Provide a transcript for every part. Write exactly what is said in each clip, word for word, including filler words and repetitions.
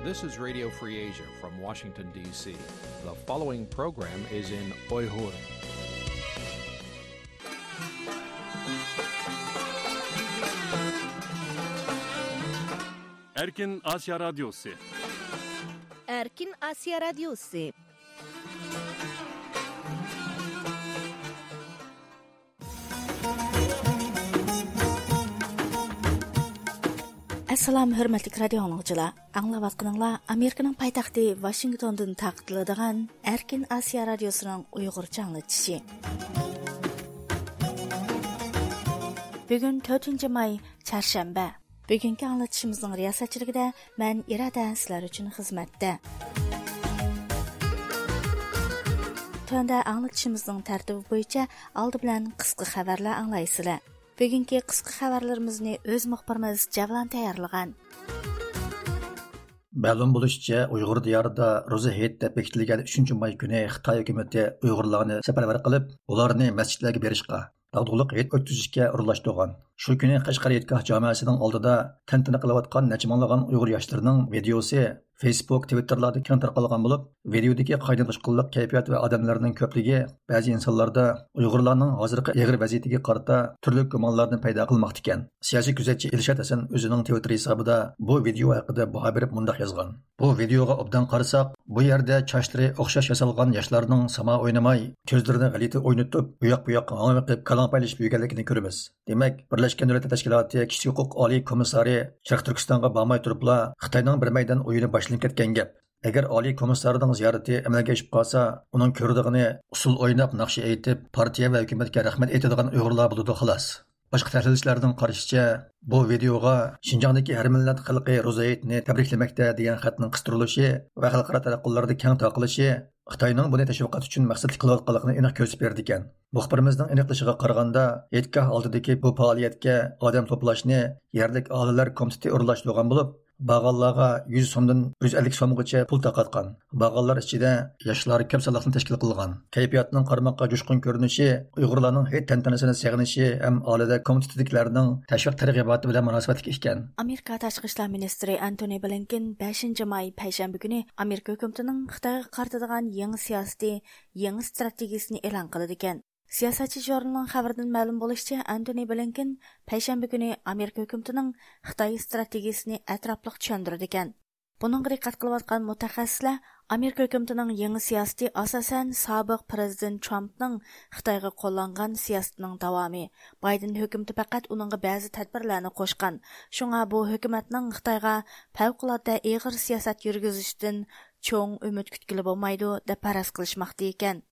This is Radio Free Asia from Washington, D C. The following program is in Uyghur. Erkin Asya Radyosu. Erkin Asya Radyosu. ئەسسالام، ھۆرمەتلىك رادىيو ئاڭلىغۇچىلار! ئاڭلاۋاتقىنىڭلار ئامېرىكىنىڭ پايتەختى ۋاشىنگتوندىن تارقىتىلىدىغان ئەركىن ئاسىيا رادىيوسىنىڭ ئۇيغۇرچە ئاڭلىتىشى. بۈگۈن تۆتىنچى ماي، چارشەنبە. بۈگۈنكى ئاڭلىتىشىمىزنىڭ رىياسەتچىلىكىدە مەن ئىرادە سىلەر ئۈچۈن خىزمەتتە. تۆۋەندە ئاڭلىتىشىمىزنىڭ تەرتىپى بويىچە ئالدى بىلەن قىسقا خەۋەرلەر ئاڭلايسىلەر. بۈگۈنكى قىسقا خەۋەرلىرىمىزنى ئۆز مۇخبىرىمىز جەۋلان تەييارلىغان. مەلۇم بولۇشىچە، ئۇيغۇر دىيارىدا روزا ھېيت دەپ بېكىتىلگەن ئۈچىنچى ماي كۈنى خىتاي ھۆكۈمىتى ئۇيغۇرلارنى سەپەرۋەر قىلىپ، ئۇلارنى مەسچىتلەرگە بېرىشقا، داغدۇغىلىق ھېيت ئۆتكۈزۈشكە ئورۇنلاشتۇرغان. شۇ كۈنى قەشقەر ھېيتگاھ جامەسىنىڭ ئالدىدا تەنتەنە قىلىۋاتقان نەچچە مىڭلىغان ئۇيغۇر ياشلىرىنىڭ ۋىدىيوسى فېيسبۇك، تىۋىتتېرلاردا كەڭ تارقالغان بولۇپ، ۋىدىيودىكى قاينىغۇچقۇنلۇق كەيپىيات ۋە ئادەملەرنىڭ كۆپلۈكى بەزى ئىنسانلاردا ئۇيغۇرلارنىڭ ھازىرقى ئېغىر ۋەزىيىتىگە قارىتا تۈرلۈك گۇمانلارنى پەيدا قىلماقتىكەن. سىياسىي كۆزەتچى ئىلشات ھەسەن ئۆزىنىڭ تىۋىتتېر ھېسابىدا بۇ ۋىدىيو ھەققىدە باھا بېرىپ مۇنداق يازغان: بۇ ۋىدىيوغا ئوبدان قارىساق، بۇ يەردە چاچلىرى ئوخشاش ياسالغان ياشلارنىڭ ساما ئوينىماي، كۆزلىرىنى غەلىتە ئوينىتىپ، ئۇياق-بۇياققا ھاڭۋېقىپ، كالاڭ پايلىشىپ يۈرگەنلىكىنى كۆرىمىز. دېمەك، بىرلەشكەن دۆلەتلەر تەشكىلاتى كىشىلىك ھوقۇق ئالىي كومىسسارى شەرقىي تۈركىستانغا بارماي تۇرۇپلا، خىتاينىڭ بىر مەيدان ئويۇنى باشلىنىپ كەتكەن گەپ. ئەگەر ئالىي كومىسسارنىڭ زىيارىتى ئەمەلگە ئېشىپ قالسا، ئۇنىڭ كۆرىدىغىنى ئۇسسۇل ئويناپ، ناخشا ئېيتىپ، پارتىيە ۋە ھۆكۈمەتكە رەھمەت ئېيتىدىغان ئۇيغۇرلار بولىدۇ، خالاس. باشقا تەھلىلچىلەرنىڭ قارىشىچە، بۇ ۋىدىيوغا شىنجاڭدىكى ھەر مىللەت خەلقى روزا ھېيتنى تەبرىكلىمەكتە دېگەن خەتنىڭ قىستۇرۇلۇشى ۋە خەلقئارا تاراتقۇلاردا كەڭ تارقىلىشى خىتاينىڭ بۇنى تەشۋىقات ئۈچۈن مەقسەتلىك قىلىۋاتقانلىقىنى ئېنىق كۆرسىتىپ بېرىدىكەن. مۇخبىرىمىزنىڭ ئېنىقلىشىغا قارىغاندا، ھېيتگاھ ئالدىدىكى بۇ پائالىيەتكە ئادەم توپلاشنى يەرلىك ئاھالىلەر كومىتېتى ئورۇنلاشتۇرغان بولۇپ، بارغانلارغا يۈز سومدىن يۈز ئەللىك سومغىچە پۇل تارقاتقان. بارغانلار ئىچىدە ياشلار كۆپ سانلىقنى تەشكىل قىلغان. كەيپىياتنىڭ قارىماققا جۇشقۇن كۆرۈنۈشى ئۇيغۇرلارنىڭ ھېيت تەنتەنىسىنى سېغىنىشى ھەم ئالىدە كومىتېتىدىكىلەرنىڭ تەشۋىق تەرغىباتى بىلەن مۇناسىۋەتلىك ئىكەن. ئامېرىكا تاشقى ئىشلار مىنىستىرى ئەنتونى بلىنكېن بەشىنچى ماي پەيشەنبە كۈنى ئامېرىكا ھۆكۈمىتىنىڭ خىتايغا قارىتىدىغان يېڭى سىياسىتى، يېڭى ئىستراتېگىيىسىنى ئېلان قىلىدىكەن. سىياسەتچى ژۇرنىلىنىڭ خەۋىرىدىن مەلۇم بولۇشىچە، ئەنتونى بلىنكېن پەيشەنبە كۈنى ئامېرىكا ھۆكۈمىتىنىڭ خىتاي ئىستراتېگىيىسىنى ئەتراپلىق چۈشەندۈرىدىكەن. بۇنىڭغا دىققەت قىلىۋاتقان مۇتەخەسسىسلەر ئامېرىكا ھۆكۈمىتىنىڭ يېڭى سىياسىتى ئاساسەن سابىق پىرېزىدېنت ترامپنىڭ خىتايغا قوللانغان سىياسىتىنىڭ داۋامى. بايدېن ھۆكۈمىتى پەقەت ئۇنىڭغا بەزى تەدبىرلەرنى قوشقان. شۇڭا بۇ ھۆكۈمەتنىڭ خىتايغا پەۋقۇلئاددە ئېغىر سىياسەت يۈرگۈزۈشىدىن چوڭ ئۈمىد كۈتكىلى بولمايدۇ، دەپ پەرەز قىلىشماقتا ئىكەن.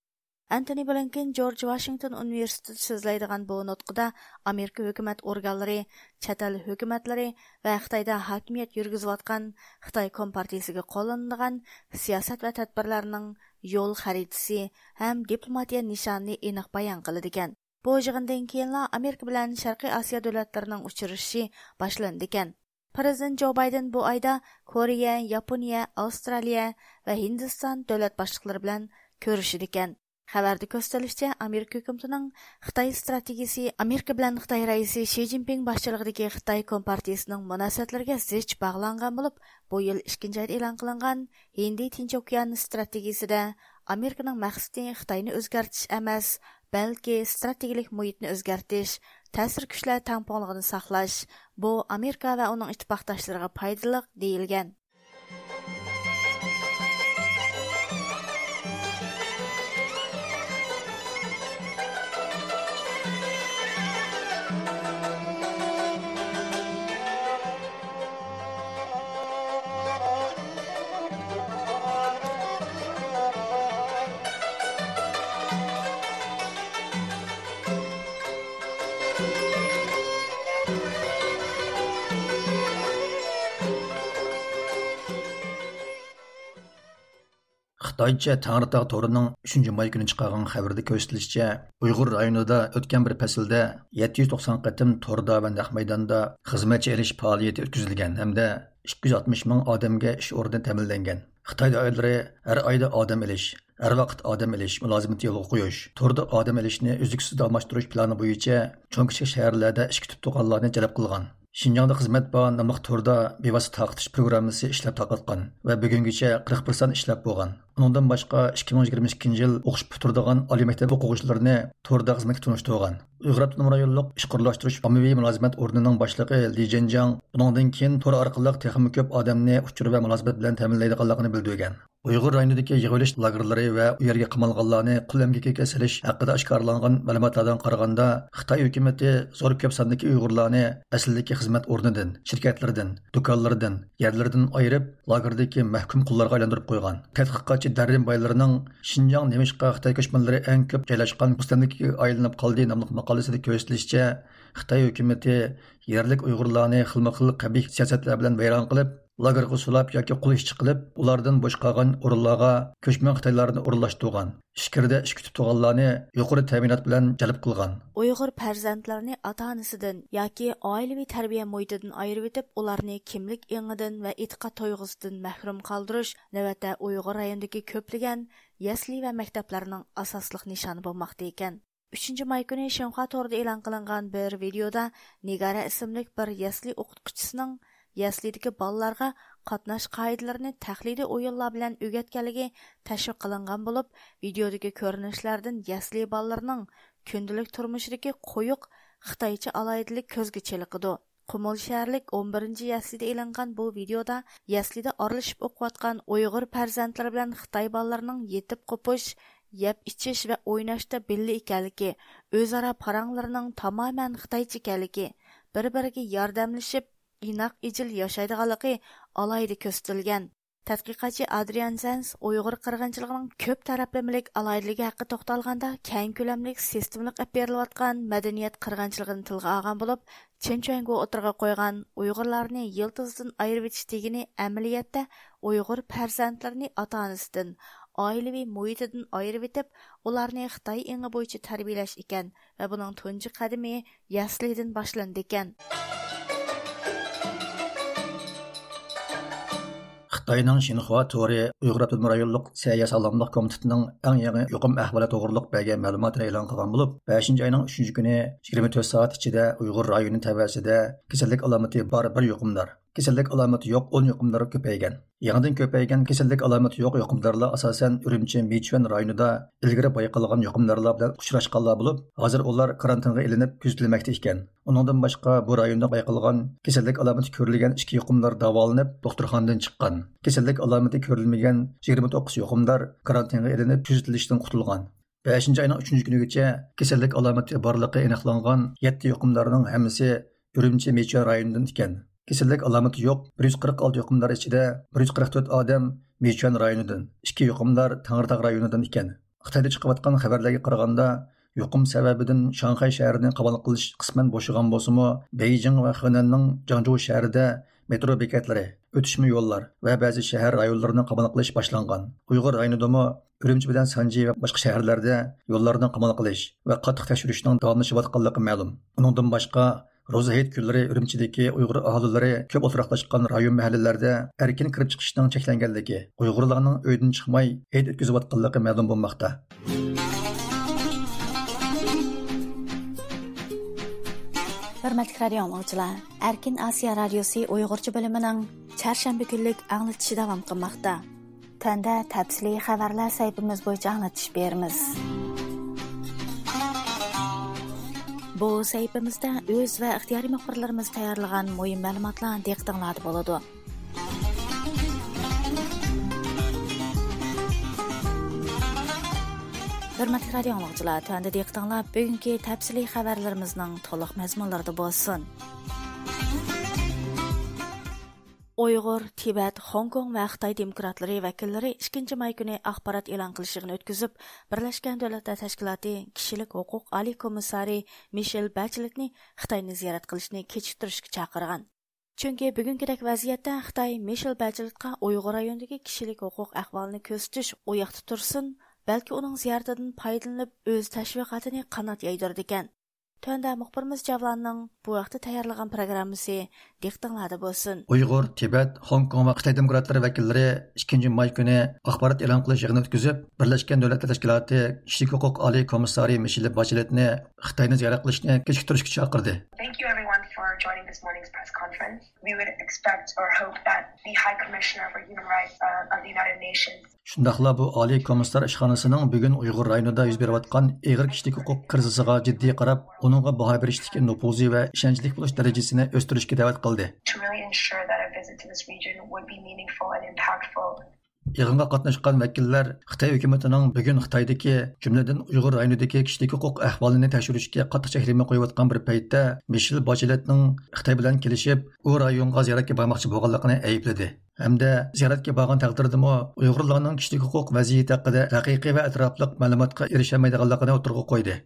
ئەنتونى بلىنكېن جورج ۋاشىنگتون ئۇنىۋېرسىتېتىدا سۆزلەيدىغان بۇ نۇتقىدا ئامېرىكا ھۆكۈمەت ئورگانلىرى، چەت ئەل ھۆكۈمەتلىرى ۋە خىتايدا ھاكىمىيەت يۈرگۈزۈۋاتقان خىتاي كومپارتىيىسىگە قوللىنىدىغان سىياسەت ۋە تەدبىرلەرنىڭ يول خەرىتىسى ھەم دىپلوماتىيە نىشانىنى ئېنىق بايان قىلىدىكەن. بۇ يىغىندىن كېيىنلا ئامېرىكا بىلەن شەرقىي ئاسىيا دۆلەتلىرىنىڭ ئۇچرىشىشى باشلىنىدىكەن. پىرېزىدېنت جو بايدېن بۇ ئايدا كورېيە، ياپونىيە، ئاۋسترالىيە ۋە ھىندىستان دۆلەت باشلىقلىرى بىلەن كۆرۈشىدىكەن. خەۋەردە كۆرسىتىلىشىچە، ئامېرىكا ھۆكۈمىتىنىڭ خىتاي ئىستراتېگىيىسى ئامېرىكا بىلەن خىتاي رەئىسى شى جىنپىڭ باشچىلىقىدىكى خىتاي كومپارتىيىسىنىڭ مۇناسىۋەتلىرىگە زىچ باغلانغان بولۇپ، بۇ يىل ئىككىنچى ئايدا ئېلان قىلىنغان ھىندى تىنچ ئوكيان ئىستراتېگىيىسىدە ئامېرىكىنىڭ مەقسىتى خىتاينى ئۆزگەرتىش ئەمەس، بەلكى ئىستراتېگىيىلىك مۇھىتنى ئۆزگەرتىش، تەسىر كۈچلەر تەڭپۇڭلۇقىنى ساقلاش، بۇ ئامېرىكا ۋە ئۇنىڭ ئىتتىپاقداشلىرىغا پايدىلىق، دېيىلگەن. خىتايچە تەڭرىتاغ تورىنىڭ ئۈچىنچى ماي كۈنى چىقارغان خەۋىرىدە كۆرسىتىلىشىچە، ئۇيغۇر رايونىدا ئۆتكەن بىر پەسىلدە يەتتە يۈز توقسان قېتىم توردا ۋە نەق مەيداندا خىزمەتچى ئېلىش پائالىيىتى ئۆتكۈزۈلگەن ھەمدە ئىككى يۈز ئاتمىش مىڭ ئادەمگە ئىش ئورنى تەمىنلەنگەن. خىتاي دائىرىلىرى ھەر ئايدا ئادەم ئېلىش، ھەر ۋاقىت ئادەم ئېلىش مۇلازىمىتى يولغا قويۇش، توردا ئادەم ئېلىشنى ئۈزلۈكسىز داۋاملاشتۇرۇش پىلانى بويىچە چوڭ كىچىك شەھەرلەردە ئىش كۈتۈپ تۇرغانلارنى جەلپ قىلغان. شىنجاڭدا خىزمەت بار ناملىق توردا بىۋاسىتە تارقىتىش پروگراممىسى ئىشلەپ تارقاتقان ۋە بۈگۈنگىچە قىرىق بىر سان ئىشلەپ بولغان. ئۇنىڭدىن باشقا، ئىككى مىڭ يىگىرمە ئىككىنچى يىل ئوقۇش پۈتتۈرىدىغان ئالىي مەكتەپ ئوقۇغۇچىلىرىنى توردا خىزمەتكە تونۇشتۇرغان. ئۇيغۇر ئاپتونوم رايونلۇق ئىشقا ئورۇنلاشتۇرۇش ئاممىۋى مۇلازىمەت ئورنىنىڭ باشلىقى لى جېنجاڭ بۇنىڭدىن كېيىن تور ئارقىلىق تېخىمۇ كۆپ ئادەمنى ئۇچۇر ۋە مۇلازىمەت بىلەن تەمىنلەيدىغانلىقىنى بىلدۈرگەن. ئۇيغۇر رايونىدىكى يىغىۋېلىش لاگېرلىرى ۋە ئۇ يەرگە قامالغانلارنى قۇل ئەمگىكىگە سېلىش ھەققىدە ئاشكارىلانغان مەلۇماتلاردىن قارىغاندا، خىتاي ھۆكۈمىتى زور كۆپ ساندىكى ئۇيغۇرلارنى ئەسلىدىكى خىزمەت ئورنىدىن، شىركەتلىرىدىن، دۇكانلىرىدىن، يەرلىرىدىن ئايرىپ، لاگېردىكى مەھكۇم قۇللارغا ئايلاندۇرۇپ قويغان. تەتقىقاتچى دەررىن بايلىرنىڭ شىنجاڭ نېمىشقا خىتاي كۆچمەنلىرى ئەڭ كۆپ جايلاشقان مۇستەملىكىگە ئايلىنىپ قالدى ناملىق ماقالىسىدە كۆرسىتىلىشىچە، خىتاي ھۆكۈمىتى يەرلىك ئۇيغۇرلارنى خىلمۇ خىل قەبىھ سىياسەتلەر بىلەن ۋەيران قىلىپ، لاگېرغا سولاپ ياكى قول ئىشچى قىلىپ، ئۇلاردىن بوش قالغان ئورۇنلارغا كۆچمەن خىتايلارنى ئورۇنلاشتۇرغان. ئىچكىرىدە ئىش كۈتۈپ تۇرغانلارنى يۇقىرى تەمىنات بىلەن جەلپ قىلغان. ئۇيغۇر پەرزەنتلىرىنى ئاتا-ئانىسىدىن ياكى ئائىلىۋى تەربىيە مۇھىتىدىن ئايرىۋېتىپ، ئۇلارنى كىملىك ئېڭىدىن ۋە ئېتىقاد تۇيغۇسىدىن مەھرۇم قالدۇرۇش نۆۋەتتە ئۇيغۇر رايونىدىكى كۆپلىگەن يەسلى ۋە مەكتەپلەرنىڭ ئاساسلىق نىشانى بولماقتا ئىكەن. ئۈچىنچى ماي كۈنى شىنخۇا تورىدا ئېلان قىلىنغان بىر ۋىدېيودا نىگارە ئىسىملىك بىر يەسلى ئوقۇتقۇچىسىنىڭ يەسلىدىكى بالىلارغا قاتناش قائىدىلىرىنى تەقلىدىي ئويۇنلار بىلەن ئۆگەتكەنلىكى تەشۋىق قىلىنغان بولۇپ، ۋىدېيودىكى كۆرۈنۈشلەردىن يەسلى بالىلىرىنىڭ كۈندىلىك تۇرمۇشىدىكى قويۇق خىتايچە ئالاھىدىلىك كۆزگە چېلىقىدۇ. قۇمۇل شەھەرلىك ئون بىرىنچى يەسلىدە ئېلىنغان بۇ ۋىدېيودا يەسلىدە ئارىلىشىپ ئوقۇۋاتقان ئۇيغۇر پەرزەنتلىرى بىلەن خىتاي بالىلىرىنىڭ يېتىپ قوپۇش، يەپ ئىچىش ۋە ئويناشتا بىللە ئىكەنلىكى، ئۆزئارا پاراڭلىرىنىڭ تامامەن خىتايچە ئىكەنلىكى، بىر-بىرىگە ياردەملىشىپ، ئىناق ئىجىل ياشايدىغانلىقى ئالاھىدە كۆرسىتىلگەن. تەتقىقاتچى ئادرىيان زەنس ئۇيغۇر قىرغىنچىلىقىنىڭ كۆپ تەرەپلىمىلىك ئالاھىدىلىكى ھەققىدە توختالغاندا، كەڭ كۆلەملىك سىستېمىلىق ئېلىپ بېرىلىۋاتقان مەدەنىيەت قىرغىنچىلىقىنى تىلغا ئالغان بولۇپ، چېن چۈەنگو ئوتتۇرىغا قويغان ئۇيغۇرلارنى يىلتىزىدىن ئايرىۋېتىش دېگىنى ئەمەلىيەتتە ئۇيغۇر پەرزەنتلىرىنى ئاتا-ئانىسىدىن، ئائىلىۋى مۇھىتىدىن ئايرىۋېتىپ، ئۇلارنى خىتاي ئېڭى بويىچە تەربىيەلەش ئىكەن ۋە بۇنىڭ تۇنجى قەدىمى يەسلىدىن باشلىنىدىكەن. خىتاينىڭ شىنخۇا تورى ئۇيغۇر ئاپتونوم رايونلۇق سەھىيە ساغلاملىق كومىتېتىنىڭ ئەڭ يېڭى يۇقۇم ئەھۋالى توغرۇلۇق بەرگەن مەلۇماتىنى ئېلان قىلغان بولۇپ، بەشىنچى ئاينىڭ ئۈچىنچى كۈنى يىگىرمە تۆت سائەت ئىچىدە ئۇيغۇر رايونى تەۋەسىدە كېسەللىك ئالامىتى بار بىر يۇقۇمدار، كېسەللىك ئالامىتى يوق ئون يۇقۇمدار كۆپەيگەن. يېڭىدىن كۆپەيگەن كېسەللىك ئالامىتى يوق يۇقۇمدارلار ئاساسەن ئۈرۈمچى مىچۈەن رايونىدا ئىلگىرى بايقالغان يۇقۇمدارلار بىلەن ئۇچراشقانلار بولۇپ، ھازىر ئۇلار كارانتىنغا ئېلىنىپ كۆزىتىلمەكتە ئىكەن. ئۇنىڭدىن باشقا، بۇ رايوندا بايقالغان كېسەللىك ئالامىتى كۆرۈلگەن ئىككى يۇقۇمدار داۋالىنىپ، دوختۇرخانىدىن چىققان. كېسەللىك ئالامىتى كۆرۈلمىگەن يىگىرمە توققۇز يۇقۇمدار كارانتىنغا ئېلىنىپ كۆزىتىلىشتىن قۇتۇلغان. بەشىنچى ئاينىڭ ئۈچىنچى كۈنىگىچە كېسەللىك ئالامىتى بارلىقى ئېنىقلانغان يەتتە يۇقۇمدارنىڭ ھەممىسى ئۈرۈمچى مىچۈەن رايونىدىن ئىكەن. كېسەللىك ئالامىتى يوق بىر يۈز قىرىق ئالتە يۇقۇمدار ئىچىدە بىر يۈز قىرىق تۆت ئادەم مىچۈەن رايونىدىن، ئىككى يۇقۇمدار تەڭرىتاغ رايونىدىن ئىكەن. خىتايدا چىقىۋاتقان خەۋەرلەرگە قارىغاندا، يۇقۇم سەۋەبىدىن شاڭخەي شەھىرىنى قامال قىلىش قىسمەن بوشىغان بولسىمۇ، بېيجىڭ ۋە خېنەننىڭ جاڭجۇ شەھىرىدە مېترو بېكەتلىرى، ئۆتۈشمە يوللار ۋە بەزى شەھەر رايونلىرىنى قامال قىلىش باشلانغان. ئۇيغۇر رايونىدىمۇ ئۈرۈمچى بىلەن سانجى ۋە باشقا شەھەرلەردە يوللارنى قامال قىلىش ۋە قاتتىق تەكشۈرۈشنىڭ داۋاملىشىۋاتقانلىقى مەلۇم. ئۇنىڭدىن باشقا، روزا ھېيت كۈنلىرى ئۈرۈمچىدىكى ئۇيغۇر ئاھالىلىرى كۆپ ئولتۇراقلاشقان رايون مەھەللىلەردە ئەركىن كىرىپ چىقىشنىڭ چەكلەنگەنلىكى، ئۇيغۇرلارنىڭ ئۆيدىن چىقماي ھېيت ئۆتكۈزۈۋاتقانلىقى مەلۇم بولماقتا. ھۆرمەتلىك رادىيو ئاڭلىغۇچىلار، ئەركىن ئاسىيا رادىيوسى ئۇيغۇرچە بۆلۈمىنىڭ چارشەنبە كۈنلۈك ئاڭلىتىشى داۋام قىلماقتا. تۆۋەندە تەپسىلىي خەۋەرلەر سەھىپىمىز بويىچە ئاڭلىتىش بېرىمىز. بۇ سەھىپىمىزدە ئۆز ۋە ئىختىيارىي مۇخبىرلىرىمىز تەييارلىغان مۇھىم مەلۇماتلار دىققىتىڭلاردا بولىدۇ. ھۆرمەتلىك رادىيو ئاڭلىغۇچىلار، تۆۋەندە دىققىتىڭلار بۈگۈنكى تەپسىلىي خەۋەرلىرىمىزنىڭ تولۇق مەزمۇنلىرىدا بولسۇن. ئۇيغۇر، تىبەت، خوڭكوڭ ۋە خىتاي دېموكراتلىرى ۋەكىللىرى ئىككىنچى ماي كۈنى ئاخبارات ئېلان قىلىش يىغىنى ئۆتكۈزۈپ، بىرلەشكەن دۆلەتلەر تەشكىلاتى كىشىلىك ھوقۇق ئالىي كومىسسارى مىشېل بەچلېتنى خىتاينى زىيارەت قىلىشنى كېچىكتۈرۈشكە چاقىرغان. چۈنكى بۈگۈنكىدەك ۋەزىيەتتە خىتاي مىشېل بەچلېتقا ئۇيغۇر رايونىدىكى كىشىلىك ھوقۇق ئەھۋالىنى كۆرسىتىش ئۇ ياقتا تۇرسۇن، بەلكى ئۇنىڭ زىيارىتىدىن پايدىلىنىپ ئۆز تەشۋىقاتىنى قانات يايدۇرىدىكەن. تۆۋەندە مۇخبىرىمىز جەۋلاننىڭ بۇ ھەقتە تەييارلىغان پروگراممىسى دىققىتىڭلاردا بولسۇن. ئۇيغۇر، تىبەت، خوڭكوڭ ۋە خىتاي دېموكراتلىرى ۋەكىللىرى ئىككىنچى ماي كۈنى ئاخبارات ئېلان قىلىش يىغىنى ئۆتكۈزۈپ، بىرلەشكەن دۆلەتلەر تەشكىلاتى كىشىلىك ھوقۇق ئالىي كومىسسارى مىشېل بەچلېتنى خىتاينى زىيارەت قىلىشنى كېچىكتۈرۈشكە چاقىردى. Thank you everyone for for joining this morning's press conference. We would expect or hope that the High Commissioner for Human Rights, uh, of the United Nations. شۇنداقلا بۇ ئالىي كومىسسار ئىشخانىسىنىڭ بۈگۈن ئۇيغۇر رايونىدا يۈز بېرىۋاتقان ئېغىر كىشىلىك ھوقۇق كىرىزىسىغا جىددىي قاراپ، ئۇنىڭغا باھا بېرىشتىكى نوپۇزى ۋە ئىشەنچلىك بولۇش دەرىجىسىنى ئۆستۈرۈشكە دەۋەت قىلدى. To really ensure that a visit to this region would be meaningful and impactful. يىغىنغا قاتناشقان ۋەكىللەر خىتاي ھۆكۈمىتىنىڭ بۈگۈن خىتايدىكى، جۈملىدىن ئۇيغۇر رايونىدىكى كىشىلىك ھوقۇق ئەھۋالىنى تەكشۈرۈشكە قاتتىق چەكلىمە قويۇۋاتقان بىر پەيتتە، مىشېل باشلېتنىڭ خىتاي بىلەن كېلىشىپ، ئۇ رايونغا زىيارەتكە بارماقچى بولغانلىقىنى ئەيىبلىدى ھەمدە زىيارەتكە بارغان تەقدىردىمۇ ئۇيغۇرلارنىڭ كىشىلىك ھوقۇق ۋەزىيىتى ھەققىدە ھەقىقىي ۋە ئەتراپلىق مەلۇماتقا ئېرىشەلمەيدىغانلىقىنى ئوتتۇرىغا قويدى.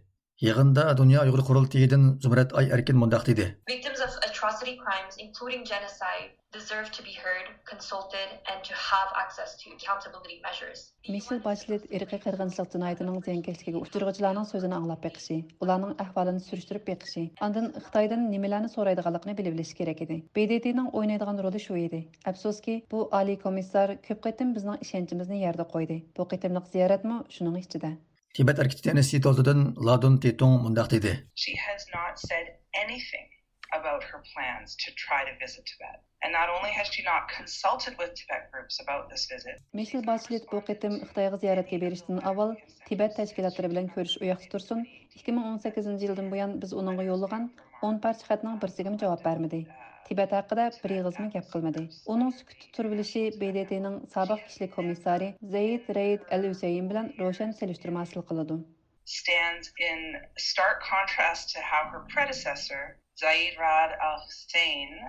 يىغىندا دۇنيا ئۇيغۇر قۇرۇلتىيىدىن زۇمرەت ئاي ئەركىن مۇنداق دېدى. Victims of atrocity crimes, including genocide, deserve to be heard, consulted, and to have access to accountability measures. مىشېل باشلېت ئىرقىي قىرغىنچىلىق جىنايىتىنىڭ زىيانكەشلىكىگە ئۇچرىغۇچىلارنىڭ سۆزىنى ئاڭلاپ بېقىشى، ئۇلارنىڭ ئەھۋالىنى سۈرۈشتۈرۈپ بېقىشى، ئاندىن خىتايدىن نېمىلەرنى سورايدىغانلىقىنى بىلىۋېلىشى كېرەك ئىدى. ب د ت نىڭ ئوينايدىغان رولى شۇ ئىدى. ئەپسۇسكى، بۇ ئالىي كومىسسار كۆپ قېتىم بىزنىڭ ئىشەنچىمىزنى يەردە قويدى. بۇ قېتىملىق زىيارەتمۇ شۇنىڭ ئىچىدە. تىبەت ھەرىكىتى ئىنستىتۇتىدىن لادۇن تىتۇڭ مۇنداق دېدى. She has not said anything about her plans to try to visit Tibet. And not only has she not consulted with Tibet groups about this visit, مىشېل باشلېت بۇ قېتىم خىتايغا زىيارەتكە بېرىشتىن ئاۋۋال تىبەت تەشكىلاتلىرى بىلەن كۆرۈشۈش ئۇياقتا تۇرسۇن، ئىككى مىڭ ئون سەككىزىنچى يىلدىن بۇيان بىز ئۇنىڭغا يوللىغان ئون پارچە خەتنىڭ بىرسىگىمۇ جاۋاب بەرمىدى. تىبەت ھەققىدە بىر ئېغىزمۇ گەپ قىلمىدى. ئۇنىڭ سۈكۈتتە تۇرۇۋېلىشى ب د ت نىڭ سابىق كىشىلىك كومىسسارى زەيىد رەئىد ئەل ھۈسەيىن بىلەن روشەن سېلىشتۇرما ھاسىل قىلىدۇ. Stands in stark contrast to how her predecessor, Zaid Ra'ad Al Hussein,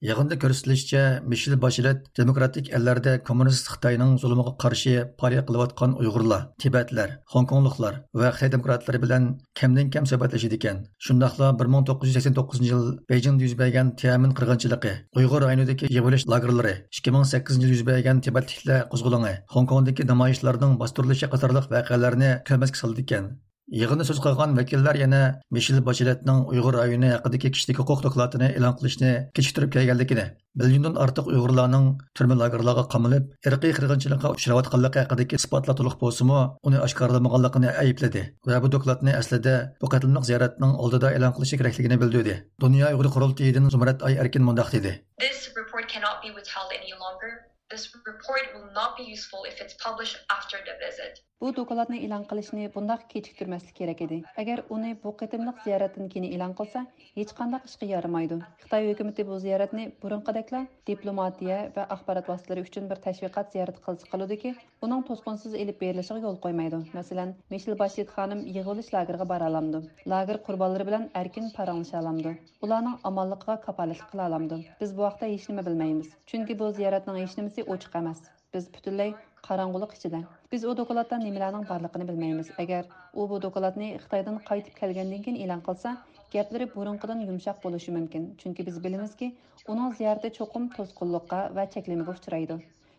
يىغىندا كۆرسىتىلىشىچە، مىشېل باشلېت دېموكراتىك ئەللەردە كوممۇنىست خىتاينىڭ زۇلۇمىغا قارشى پائالىيەت قىلىۋاتقان ئۇيغۇرلار، تىبەتلەر، خوڭكوڭلۇقلار ۋە خىتاي دېموكراتلىرى بىلەن كەمدىن كەم سۆھبەتلىشىدىكەن. شۇنداقلا بىر مىڭ توققۇز يۈز سەكسەن توققۇزىنچى يىل بېيجىڭدا يۈز بەرگەن تيەنئەنمېن قىرغىنچىلىقى، ئۇيغۇر رايونىدىكى يىغىۋېلىش لاگېرلىرى، ئىككى مىڭ سەككىزىنچى يىلى يۈز بەرگەن تىبەتلىكلەر قوزغىلىڭى، خوڭكوڭدىكى نامايىشلارنىڭ باستۇرۇلۇشى قاتارلىق ۋەقەلەرنى كۆرمەسكە سالىدىكەن. يىغىندا سۆز قىلغان ۋەكىللەر يەنە مىشېل باشلېتنىڭ ئۇيغۇر رايونى ھەققىدىكى كىشىلىك ھوقۇق دوكلاتىنى ئېلان قىلىشنى كېچىكتۈرۈپ كەلگەنلىكىنى، مىليوندىن ئارتۇق ئۇيغۇرلارنىڭ تۈرمە لاگېرلارغا قامىلىپ، ئىرقىي قىرغىنچىلىققا ئۇچراۋاتقانلىقى ھەققىدىكى ئىسپاتلار تولۇق بولسىمۇ، ئۇنى ئاشكارىلىمىغانلىقىنى ئەيىبلىدى ۋە بۇ دوكلاتنى ئەسلىدە بۇ قېتىملىق زىيارەتنىڭ ئالدىدا ئېلان قىلىشى كېرەكلىكىنى بىلدۈردى. دۇنيا ئۇيغۇر قۇرۇلتىيىدىن زۇمرەت ئاي ئەركىن مۇنداق دېدى. This report cannot be withheld any longer. This report will not be useful if it's published after the visit. بۇ دوكلاتنى ئېلان قىلىشنى بۇنداق كېچىكتۈرمەسلىك كېرەك ئىدى. ئەگەر ئۇنى بۇ قېتىملىق زىيارەتتىن كېيىن ئېلان قىلسا، ھېچقانداق ئىشقا يارىمايدۇ. خىتاي ھۆكۈمىتى بۇ زىيارەتنى بۇرۇنقىدەكلا دىپلوماتىيە ۋە ئاخبارات ۋاسىتىلىرى ئۈچۈن بىر تەشۋىقات زىيارىتى قىلسا قىلىدۇكى، ئۇنىڭ توسقۇنسىز ئېلىپ بېرىلىشىغا يول قويمايدۇ. مەسىلەن، مىشېل باشلېت خانىم يىغىۋېلىش لاگېرىغا بارالامدۇ؟ لاگېر قۇربانلىرى بىلەن ئەركىن پاراڭلىشالامدۇ؟ ئۇلارنىڭ ئامانلىقىغا كاپالەتلىك قىلالامدۇ؟ بىز بۇ ھەقتە ھېچنېمە بىلمەيمىز. چۈنكى بۇ زىيارەتنىڭ ھېچنېمىسى ئوچۇق ئەمەس. بىز پۈتۈنلەي قاراڭغۇلۇق ئىچىدە. بىز ئۇ دوكلاتتا نېمىلەرنىڭ بارلىقىنى بىلمەيمىز. ئەگەر ئۇ بۇ دوكلاتنى خىتايدىن قايتىپ كەلگەندىن كېيىن ئېلان قىلسا، گەپلىرى بۇرۇنقىدىن يۇمشاق بولۇشى مۇمكىن. چۈنكى بىز بىلىمىزكى، ئۇنىڭ زىيارىتى چوقۇم توسقۇنلۇققا ۋە چەكلىمىگە ئۇچرايدۇ.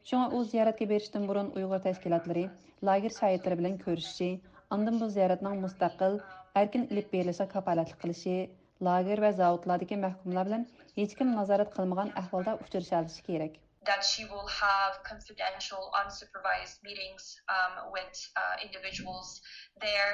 شۇڭا ئۇ زىيارەتكە بېرىشتىن بۇرۇن ئۇيغۇر تەشكىلاتلىرى، لاگېر شاھىتلىرى بىلەن كۆرۈشۈشى، ئاندىن بۇ زىيارەتنىڭ مۇستەقىل، ئەركىن ئېلىپ بېرىلىشىغا كاپالەتلىك قىلىشى، لاگېر ۋە زاۋۇتلاردىكى مەھكۇملار بىلەن ھېچكىم نازارەت قىلمىغان ئەھۋالدا ئۇچرىشالىشى كېرەك. That she will have confidential, unsupervised meetings, um, with, uh, individuals there.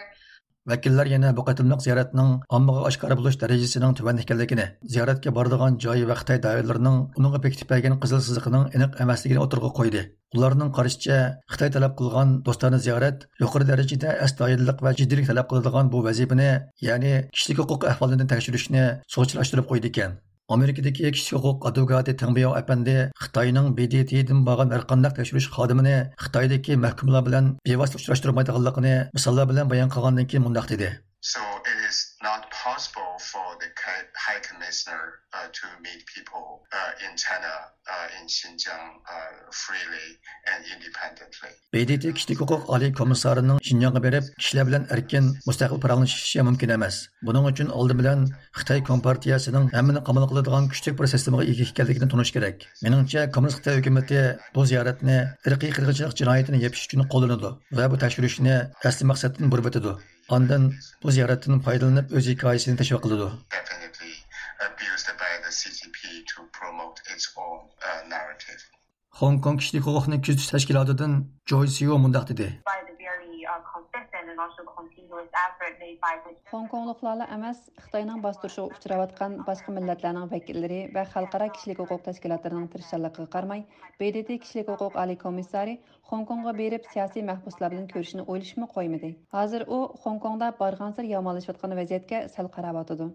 ۋەكىللەر يەنە بۇ قېتىملىق زىيارەتنىڭ ئاممىغا ئاشكارا بولۇش دەرىجىسىنىڭ تۆۋەن ئىكەنلىكىنى، زىيارەتكە بارىدىغان جاي ۋە خىتاي دائىرىلىرىنىڭ ئۇنىڭغا بېكىتىپ بەرگەن قىزىل سىزىقىنىڭ ئېنىق ئەمەسلىكىنى ئوتتۇرىغا قويدى. ئۇلارنىڭ قارىشىچە، خىتاي تەلەپ قىلغان دوستانە زىيارەت يۇقىرى دەرىجىدە ئەستايىدىللىق ۋە جىددىيلىك تەلەپ قىلىدىغان بۇ ۋەزىپىنى، يەنى كىشىلىك ھوقۇق ئەھۋالىنى تەكشۈرۈشنى سۇغا چىلاشتۇرۇپ قويىدىكەن. ئامېرىكىدىكى كىشىلىك ھوقۇق ئادۋوكاتى تېڭ بياۋ ئەپەندى خىتاينىڭ ب د ت دىن بارغان ھەرقانداق تەكشۈرۈش خادىمىنى خىتايدىكى مەھكۇملار بىلەن بىۋاسىتە ئۇچراشتۇرمايدىغانلىقىنى مىساللار بىلەن بايان قىلغاندىن كېيىن مۇنداق دېدى. So it is not possible for the High Commissioner, uh, to meet people, uh, in China, uh, in Xinjiang, uh, freely and independently. ب د ت كىشىلىك ھوقۇق ئالىي كومىسسارىنىڭ شىنجاڭغا بېرىپ، كىشىلەر بىلەن ئەركىن، مۇستەقىل پاراڭلىشىشى مۇمكىن ئەمەس. بۇنىڭ ئۈچۈن ئالدى بىلەن خىتاي كومپارتىيەسىنىڭ ھەممىنى قامال قىلىدىغان كۈچلۈك بىر سىستېمىغا ئىگە ئىكەنلىكىنى تونۇش كېرەك. مېنىڭچە، كوممۇنىست خىتاي ھۆكۈمىتى بۇ زىيارەتنى ئىرقىي قىرغىنچىلىق جىنايىتىنى يېپىش ئۈچۈن قوللىنىدۇ ۋە بۇ تەكشۈرۈشنى ئەسلى مەقسەتتىن بۇرۇۋېتىدۇ. ئاندىن بۇ زىيارەتتىن پايدىلىنىپ ئۆز ھېكايىسىنى تەشۋىق قىلىدۇ. Definitely abused by the C C P to promote its own, uh, narrative. خوڭكوڭ كىشىلىك ھوقۇقنى كۆزىتىش تەشكىلاتىدىن جوي سيۇ مۇنداق دېدى. By the very, uh, consistent and also continuous effort made by the خوڭكوڭلۇقلارلا ئەمەس، خىتاينىڭ باستۇرۇشىغا ئۇچراۋاتقان باشقا مىللەتلەرنىڭ ۋەكىللىرى ۋە خەلقئارا كىشىلىك ھوقۇق تەشكىلاتلىرىنىڭ تىرىشچانلىقىغا قارىماي، ب د ت كىشىلىك ھوقۇق ئالىي كومىسسارى خوڭكوڭغا بېرىپ سىياسىي مەھبۇسلار بىلەن كۆرۈشۈشنى ئويلىشىپمۇ قويمىدى. ھازىر ئۇ خوڭكوڭدا بارغانسېرى يامانلىشىۋاتقان ۋەزىيەتكە سەل قاراۋاتىدۇ.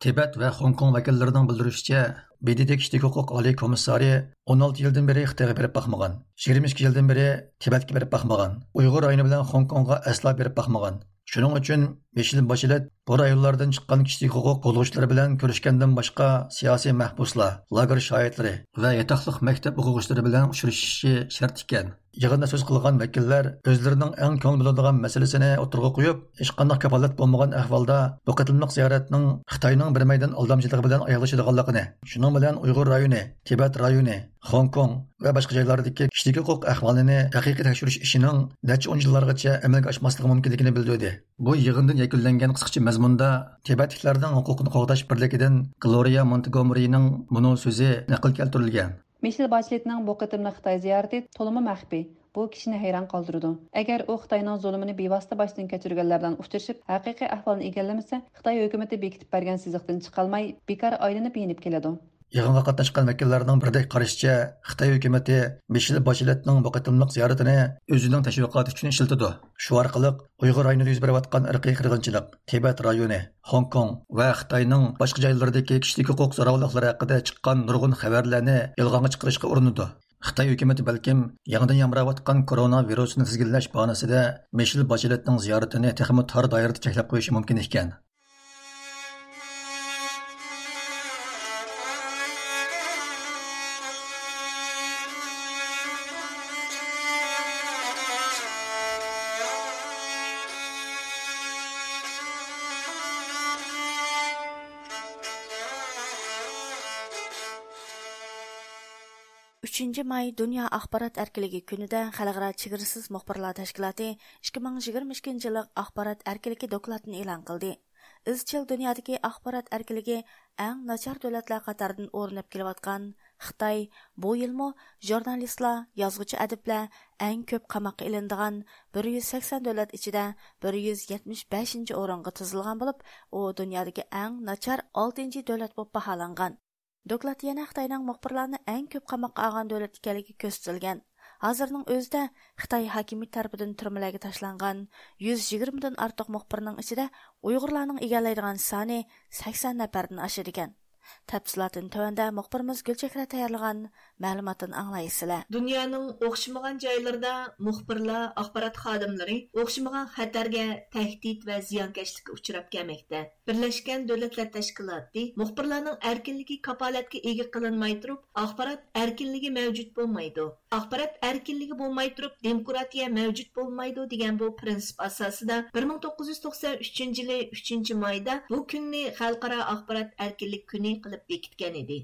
تىبەت ۋە خوڭكوڭ ۋەكىللىرىنىڭ بىلدۈرۈشىچە، ب د ت كىشىلىك ھوقۇق ئالىي كومىسسارى ئون ئالتە يىلدىن بېرى خىتايغا بېرىپ باقمىغان، يىگىرمە ئىككى يىلدىن بېرى تىبەتكە بېرىپ باقمىغان، ئۇيغۇر رايونى بىلەن خوڭكوڭغا ئەسلا بېرىپ باقمىغان. شۇنىڭ ئۈچۈن مىشېل باشلېت بۇ رايونلاردىن چىققان كىشىلىك ھوقۇق قوغدىغۇچىلىرى بىلەن كۆرۈشكەندىن باشقا، سىياسىي مەھبۇسلار، لاگېر شاھىتلىرى ۋە ياتاقلىق مەكتەپ ئوقۇغۇچىلىرى بىلەن ئۇچرىشىشى شەرت ئىكەن. يىغىندا سۆز قىلغان ۋەكىللەر ئۆزلىرىنىڭ ئەڭ كۆڭۈل بۆلىدىغان مەسىلىسىنى ئوتتۇرىغا قويۇپ، ھېچقانداق كاپالەت بولمىغان ئەھۋالدا بۇ قېتىملىق زىيارەتنىڭ خىتاينىڭ بىر مەيدان ئالدامچىلىقى بىلەن ئاياغلىشىدىغانلىقىنى، شۇنىڭ بىلەن ئۇيغۇر رايونى، تىبەت رايونى، خوڭكوڭ ۋە باشقا جايلاردىكى كىشىلىك ھوقۇق ئەھۋالىنى ھەقىقىي تەكشۈرۈش ئىشىنىڭ نەچچە ئون يىللارغىچە ئەمەلگە ئاشماسلىقى مۇمكىنلىكىنى بىلدۈردى. بۇ يىغىندىن يەكۈنلەنگەن قىسقىچە مەزمۇندا تىبەتلىكلەرنىڭ ھوقۇقىنى قوغداش بىرلىكىدىن گلورىيا مونتگومېرىنىڭ مۇنۇ سۆزى نەقىل كەلتۈرۈلگەن. مىشېل باشلېتنىڭ بۇ قېتىملىق خىتاي زىيارىتى تولىمۇ مەخپىي. بۇ كىشىنى ھەيران قالدۇرىدۇ. ئەگەر ئۇ خىتاينىڭ زۇلۇمىنى بىۋاسىتە باشتىن كەچۈرگەنلەر بىلەن ئۇچرىشىپ، ھەقىقىي ئەھۋالنى ئىگىلىمىسە، خىتاي ھۆكۈمىتى بېكىتىپ بەرگەن سىزىقتىن چىقالماي، بىكار ئايلىنىپ يېنىپ كېلىدۇ. يىغىنغا قاتناشقان ۋەكىللەرنىڭ بىرىدەك قارىشىچە، خىتاي ھۆكۈمىتى مىشېل باشلېتنىڭ بۇ قېتىملىق زىيارىتىنى ئۆزىنىڭ تەشۋىقاتى ئۈچۈن ئىشلىتىدۇ. شۇ ئارقىلىق ئۇيغۇر رايونىدا يۈز بېرىۋاتقان ئىرقىي قىرغىنچىلىق، تىبەت رايونى، خوڭكوڭ ۋە خىتاينىڭ باشقا جايلىرىدىكى كىشىلىك ھوقۇق زوراۋانلىقلىرى ھەققىدە چىققان نۇرغۇن خەۋەرلەرنى يالغانغا چىقىرىشقا ئۇرۇنىدۇ. خىتاي ھۆكۈمىتى بەلكىم يېڭىدىن يامراۋاتقان كورونا ۋىرۇسىنى تىزگىنلەش باھانىسىدە مىشېل باشلېتنىڭ زىيارىتىنى تېخىمۇ تار دائىرىدە چەكلەپ قويۇشى مۇمكىن ئىكەن. ئۈچىنچى ماي دۇنيا ئاخبارات ئەركىنلىكى كۈنىدە خەلقئارا چېگرىسىز مۇخبىرلار تەشكىلاتى ئىككى مىڭ يىگىرمە ئىككىنچى يىللىق ئاخبارات ئەركىنلىكى دوكلاتىنى ئېلان قىلدى. ئىزچىل دۇنيادىكى ئاخبارات ئەركىنلىكى ئەڭ ناچار دۆلەتلەر قاتارىدىن ئورۇن ئېلىپ كېلىۋاتقان خىتاي بۇ يىلمۇ ژۇرنالىستلار، يازغۇچى ئەدىبلەر ئەڭ كۆپ قاماققا ئېلىنىدىغان بىر يۈز سەكسەن دۆلەت ئىچىدە بىر يۈز يەتمىش بەشىنچى ئورۇنغا تىزىلغان بولۇپ، ئۇ دۇنيادىكى ئەڭ ناچار ئالتىنچى دۆلەت بولۇپ باھالانغان. دوكلاتتا يەنە خىتاينىڭ مۇخبىرلارنى ئەڭ كۆپ قاماققا ئالغان دۆلەت ئىكەنلىكى كۆرسىتىلگەن. ھازىرنىڭ ئۆزىدە خىتاي ھاكىمىيىتى تەرىپىدىن تۈرمىلەرگە تاشلانغان يۈز يىگىرمىدىن ئارتۇق مۇخبىرنىڭ ئىچىدە ئۇيغۇرلارنىڭ ئىگىلەيدىغان سانى سەكسەن نەپەردىن ئاشىدىكەن. تەپسىلاتىنى تۆۋەندە مۇخبىرىمىز گۈلچېھرە تەييارلىغان مەلۇماتتىن ئاڭلايسىلەر. دۇنيانىڭ ئوخشىمىغان جايلىرىدا مۇخبىرلار، ئاخبارات خادىملىرى ئوخشىمىغان خەتەرگە، تەھدىت ۋە زىيانكەشلىككە ئۇچراپ كەلمەكتە. بىرلەشكەن دۆلەتلەر تەشكىلاتى مۇخبىرلارنىڭ ئەركىنلىكى كاپالەتكە ئىگە قىلىنماي تۇرۇپ، ئاخبارات ئەركىنلىكى مەۋجۇت بولمايدۇ. ئاخبارات ئەركىنلىكى بولماي تۇرۇپ، دېموكراتىيە مەۋجۇت بولمايدۇ دېگەن بۇ پىرىنسىپ ئاساسىدا بىر مىڭ توققۇز يۈز توقسان ئۈچىنچى يىلى ئۈچىنچى مايدا بۇ كۈننى خەلقئارا ئاخبارات ئەركىنلىك كۈنى قىلىپ بېكىتكەن ئىدى.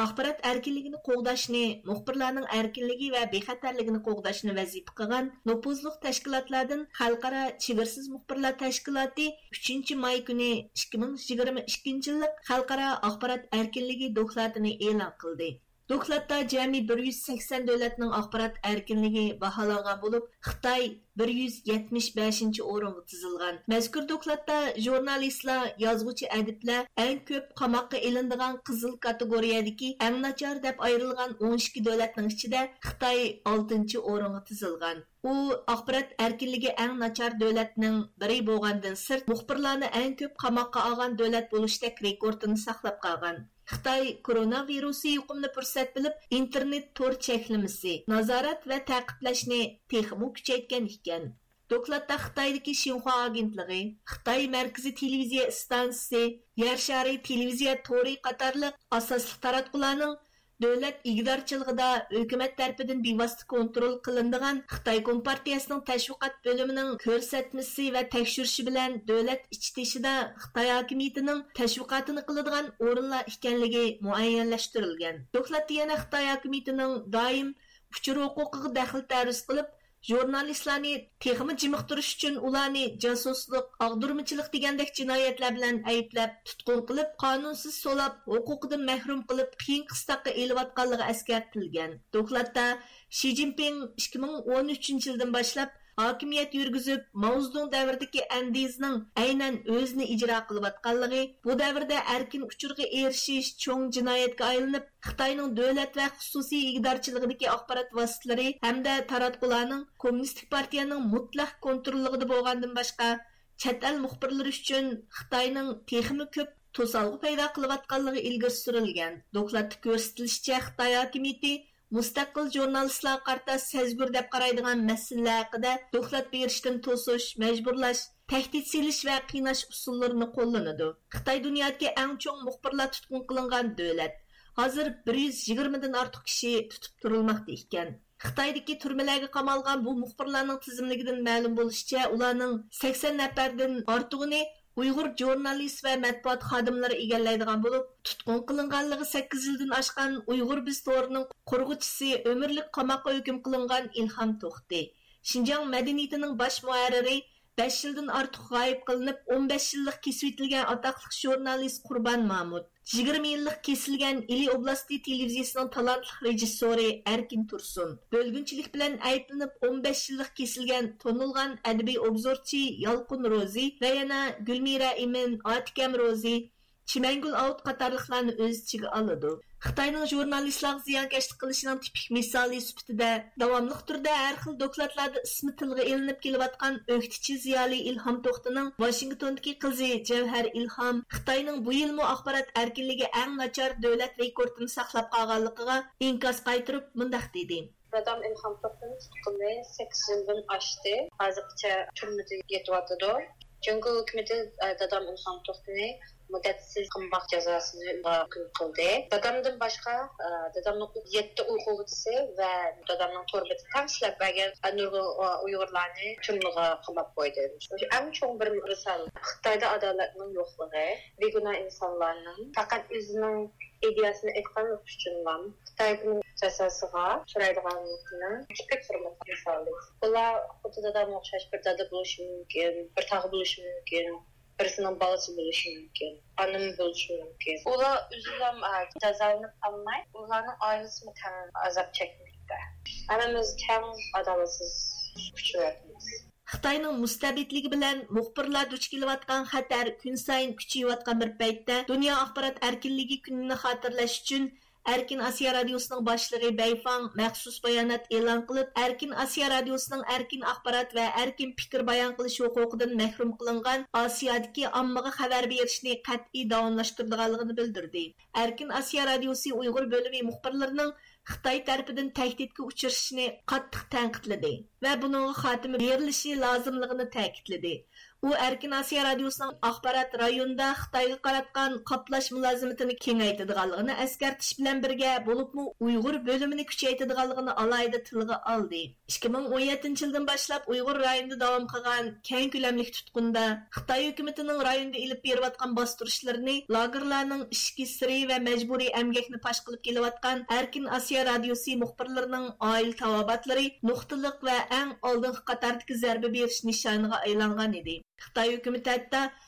ئاخبارات ئەركىنلىكىنى قوغداشنى، مۇخبىرلارنىڭ ئەركىنلىكى ۋە بىخەتەرلىكىنى قوغداشنى ۋەزىپە قىلغان نوپۇزلۇق تەشكىلاتلاردىن خەلقئارا چېگرىسىز مۇخبىرلار تەشكىلاتى ئۈچىنچى ماي كۈنى ئىككى مىڭ يىگىرمە ئىككىنچى يىللىق خەلقئارا ئاخبارات ئەركىنلىكى دوكلاتىنى ئېلان قىلدى. دوكلاتتا جەمئىي بىر يۈز سەكسەن دۆلەتنىڭ ئاخبارات ئەركىنلىكى باھالانغان بولۇپ، خىتاي بىر يۈز يەتمىش بەشىنچى ئورۇنغا تىزىلغان. مەزكۇر دوكلاتتا ژۇرنالىستلار، يازغۇچى، ئەدىبلەر ئەڭ كۆپ قاماققا ئېلىنىدىغان قىزىل كاتېگورىيەدىكى ئەڭ ناچار دەپ ئايرىلغان ئون ئىككى دۆلەتنىڭ ئىچىدە خىتاي ئالتىنچى ئورۇنغا تىزىلغان. ئۇ ئاخبارات ئەركىنلىكى ئەڭ ناچار دۆلەتنىڭ بىرى بولغاندىن سىرت، مۇخبىرلارنى ئەڭ كۆپ قاماققا ئالغان دۆلەت بولۇشتەك رېكورتىنى ساقلاپ قالغان. خىتاي كورونا ۋىرۇسى يۇقۇمىنى پۇرسەت بىلىپ، ئىنتېرنېت تور چەكلىمىسى، نازارەت ۋە تەقىبلەشنى تېخىمۇ كۈچەيتكەن ئىكەن. دوكلاتتا خىتايدىكى شىنخۇا ئاگېنتلىقى، خىتاي مەركىزىي تېلېۋىزىيە ئىستانسىسى، يەر شارى تېلېۋىزىيە تورى قاتارلىق ئاساسلىق تاراتقۇلارنىڭ دۆلەت ئىگىدارچىلىقىدا ھۆكۈمەت تەرىپىدىن بىۋاسىتە كونترول قىلىنىدىغان خىتاي كومپارتىيەسىنىڭ تەشۋىقات بۆلۈمىنىڭ كۆرسەتمىسى ۋە تەكشۈرۈشى بىلەن دۆلەت ئىچى تېشىدا خىتاي ھاكىمىيىتىنىڭ تەشۋىقاتىنى قىلىدىغان ئورۇنلار ئىكەنلىكى مۇئەييەنلەشتۈرۈلگەن. دوكلاتتا يەنە خىتاي ھاكىمىيىتىنىڭ دائىم ئۇچۇر ھوقۇقىغا دەخلى تەرۇز قىلىپ، ژۇرنالىستلارنى تېخىمۇ جىمىقتۇرۇش ئۈچۈن ئۇلارنى جاسۇسلۇق، ئاغدۇرمىچىلىق دېگەندەك جىنايەتلەر بىلەن ئەيىبلەپ، تۇتقۇن قىلىپ، قانۇنسىز سولاپ، ھوقۇقىدىن مەھرۇم قىلىپ، قىيىن قىستاققا ئېلىۋاتقانلىقى ئەسكەرتىلگەن. دوكلاتتا شى جىنپىڭ ئىككى مىڭ ئون ئۈچىنچى يىلدىن باشلاپ ھاكىمىيەت يۈرگۈزۈپ، ماۋزېدۇڭ دەۋرىدىكى ئەندىزىنىڭ ئەينەن ئۆزىنى ئىجرا قىلىۋاتقانلىقى، بۇ دەۋردە ئەركىن ئۇچۇرغا ئېرىشىش چوڭ جىنايەتكە ئايلىنىپ، خىتاينىڭ دۆلەت ۋە خۇسۇسىي ئىگىدارچىلىقىدىكى ئاخبارات ۋاسىتىلىرى ھەمدە تاراتقۇلارنىڭ كوممۇنىستىك پارتىيەنىڭ مۇتلەق كونتروللۇقىدا بولغاندىن باشقا، چەت ئەل مۇخبىرلىرى ئۈچۈن خىتاينىڭ تېخىمۇ كۆپ توسالغۇ پەيدا قىلىۋاتقانلىقى ئىلگىرى سۈرۈلگەن. دوكلاتتا كۆرسىتىلىشىچە، خىتاي ھاكىمىيىتى مۇستەقىل ژۇرنالىستلارغا قارىتا سەزگۈر دەپ قارايدىغان مەسىلىلەر ھەققىدە دوكلات بېرىشتىن توسۇش، مەجبۇرلاش، تەھدىت سېلىش ۋە قىيناش ئۇسۇللىرىنى قوللىنىدۇ. خىتاي دۇنيادىكى ئەڭ چوڭ مۇخبىرلار تۇتقۇن قىلىنغان دۆلەت. ھازىر بىر يۈز يىگىرمىدىن ئارتۇق كىشى تۇتۇپ تۇرۇلماقتا ئىكەن. خىتايدىكى تۈرمىلەرگە قامالغان بۇ مۇخبىرلارنىڭ تىزىملىكىدىن مەلۇم بولۇشىچە، ئۇلارنىڭ سەكسەن نەپەردىن ئارتۇقىنى ئۇيغۇر ژۇرنالىست ۋە مەتبۇئات خادىملىرى ئىگىلەيدىغان بولۇپ، تۇتقۇن قىلىنغانلىقى سەككىز يىلدىن ئاشقان ئۇيغۇر بىز تورىنىڭ قۇرغۇچىسى، ئۆمۈرلۈك قاماققا ھۆكۈم قىلىنغان ئىلھام توختى، شىنجاڭ مەدەنىيىتىنىڭ باش مۇھەررىرى، بەش يىلدىن ئارتۇق غايىب قىلىنىپ، ئون بەش يىللىق كېسىۋېتىلگەن ئاتاقلىق ژۇرنالىست قۇربان مامۇت، يىگىرمە يىللىق كېسىلگەن ئىلى ئوبلاستى تېلېۋىزىيىسىنىڭ تالانتلىق رېژىسسورى ئەركىن تۇرسۇن، بۆلگۈنچىلىك بىلەن ئەيىبلىنىپ، ئون بەش يىللىق كېسىلگەن تونۇلغان ئەدەبىي ئوبزورچى يالقۇن روزى ۋە يەنە گۈلمىرە ئىمىن، ئاتىكەم روزى، چىمەنگۈل ئاۋۇت قاتارلىقلارنى ئۆز ئىچىگە ئالىدۇ. خىتاينىڭ ژۇرنالىستلارغا زىيانكەشلىك قىلىشىنىڭ تىپىك مىسالى سۈپىتىدە، داۋاملىق تۈردە ھەر خىل دوكلاتلاردا ئىسمى تىلغا ئېلىنىپ كېلىۋاتقان ئۆكتىچى زىيالىي ئىلھام توختىنىڭ ۋاشىنگتوندىكى قىزى جەۋھەر ئىلھام خىتاينىڭ بۇ يىلمۇ ئاخبارات ئەركىنلىكى ئەڭ ناچار دۆلەت رېكورتىنى ساقلاپ قالغانلىقىغا ئىنكاس قايتۇرۇپ مۇنداق دېدى. دادام ئىلھام توختىنى تۇتقىلى سەككىز يىلدىن ئاشتى. ھازىرغىچە تۈرمىدە يېتىۋاتىدۇ. جۇڭگو ھۆكۈمىتى، ئە، دادام ئىلھام توختىنى مۇددەتسىز قاماق جازاسىنى ھۆكۈم قىلدى. دادامدىن باشقا، ئە، دادامنىڭ يەتتە ئوقۇغۇچىسى ۋە دادامنىڭ تور بېتىدە تەڭ ئىشلەپ بەرگەن، ئە، نۇرغۇن، ئە، ئۇيغۇرلارنى تۈرمىگە قاماپ قويدى. شۇ ئەڭ چوڭ بىر مىسال. خىتايدا ئادالەتنىڭ يوقلۇقى، بىگۇناھ ئىنسانلارنىڭ پەقەت ئۆزىنىڭ ئىدىيەسىنى ئېيتقانلىقى ئۈچۈنلا خىتاينىڭ جازاسىغا ئۇچرايدىغانلىقىنىڭ تىپىك بىر مىسالى. بۇلار خۇددى دادامغا ئوخشاش بىر دادا بولۇشى مۇمكىن، بىر تاغا بولۇشى مۇمكىن، بىرسىنىڭ بالىسى بولۇشى مۇمكىن، ئانىمى بولۇشى مۇمكىن. ئۇلار ئۆزىلا، ئە، جازالىنىپ قالماي، ئۇلارنىڭ ئائىلىسىمۇ تەڭ ئازاب چەكمەكتە. ھەممىمىز تەڭ ئادالەتسىز ئۇچراۋاتىمىز. خىتاينىڭ مۇستەبىتلىكى بىلەن مۇخبىرلار دۇچ كېلىۋاتقان خەتەر كۈنسايىن كۈچىيىۋاتقان بىر پەيتتە، دۇنيا ئاخبارات ئەركىنلىكى كۈنىنى خاتىرىلەش ئۈچۈن ئەركىن ئاسىيا رادىيوسىنىڭ باشلىقى بەيفاڭ مەخسۇس بايانات ئېلان قىلىپ، ئەركىن ئاسىيا رادىيوسىنىڭ ئەركىن ئاخبارات ۋە ئەركىن پىكىر بايان قىلىش ھوقۇقىدىن مەھرۇم قىلىنغان ئاسىيادىكى ئاممىغا خەۋەر بېرىشنى قەتئىي داۋاملاشتۇرىدىغانلىقىنى بىلدۈردى. ئەركىن ئاسىيا رادىيوسى ئۇيغۇر بۆلۈمى مۇخبىرلىرىنىڭ خىتاي تەرىپىدىن تەھدىتكە ئۇچرىشىشىنى قاتتىق تەنقىدلىدى ۋە بۇنىڭغا خاتىمە بېرىلىشى لازىملىقىنى تەكىتلىدى. ئۇ ئەركىن ئاسىيا رادىيوسىنىڭ ئاخبارات رايونىدا خىتايغا قاراتقان قاپلاش مۇلازىمىتىنى كېڭەيتىدىغانلىقىنى ئەسكەرتىش بىلەن بىرگە، بولۇپمۇ ئۇيغۇر بۆلۈمىنى كۈچەيتىدىغانلىقىنى ئالاھىدە تىلغا ئالدى. ئىككى مىڭ ئون يەتتىنچى يىلدىن باشلاپ ئۇيغۇر رايونىدا داۋام قىلغان كەڭ كۆلەملىك تۇتقۇندا، خىتاي ھۆكۈمىتىنىڭ رايوندا ئېلىپ بېرىۋاتقان باستۇرۇشلىرىنى، لاگېرلارنىڭ ئىچكى سىرى ۋە مەجبۇرىي ئەمگەكنى پاش قىلىپ كېلىۋاتقان ئەركىن ئاسىيا رادىيوسى مۇخبىرلىرىنىڭ ئائىلە تاۋابىئاتلىرى نۇقتىلىق ۋە ئەڭ ئالدىنقى قاتاردىكى زەربە بېرىش نىشانىغا ئايلانغان ئىدى. خىتاي ھۆكۈمىتى ھەتتا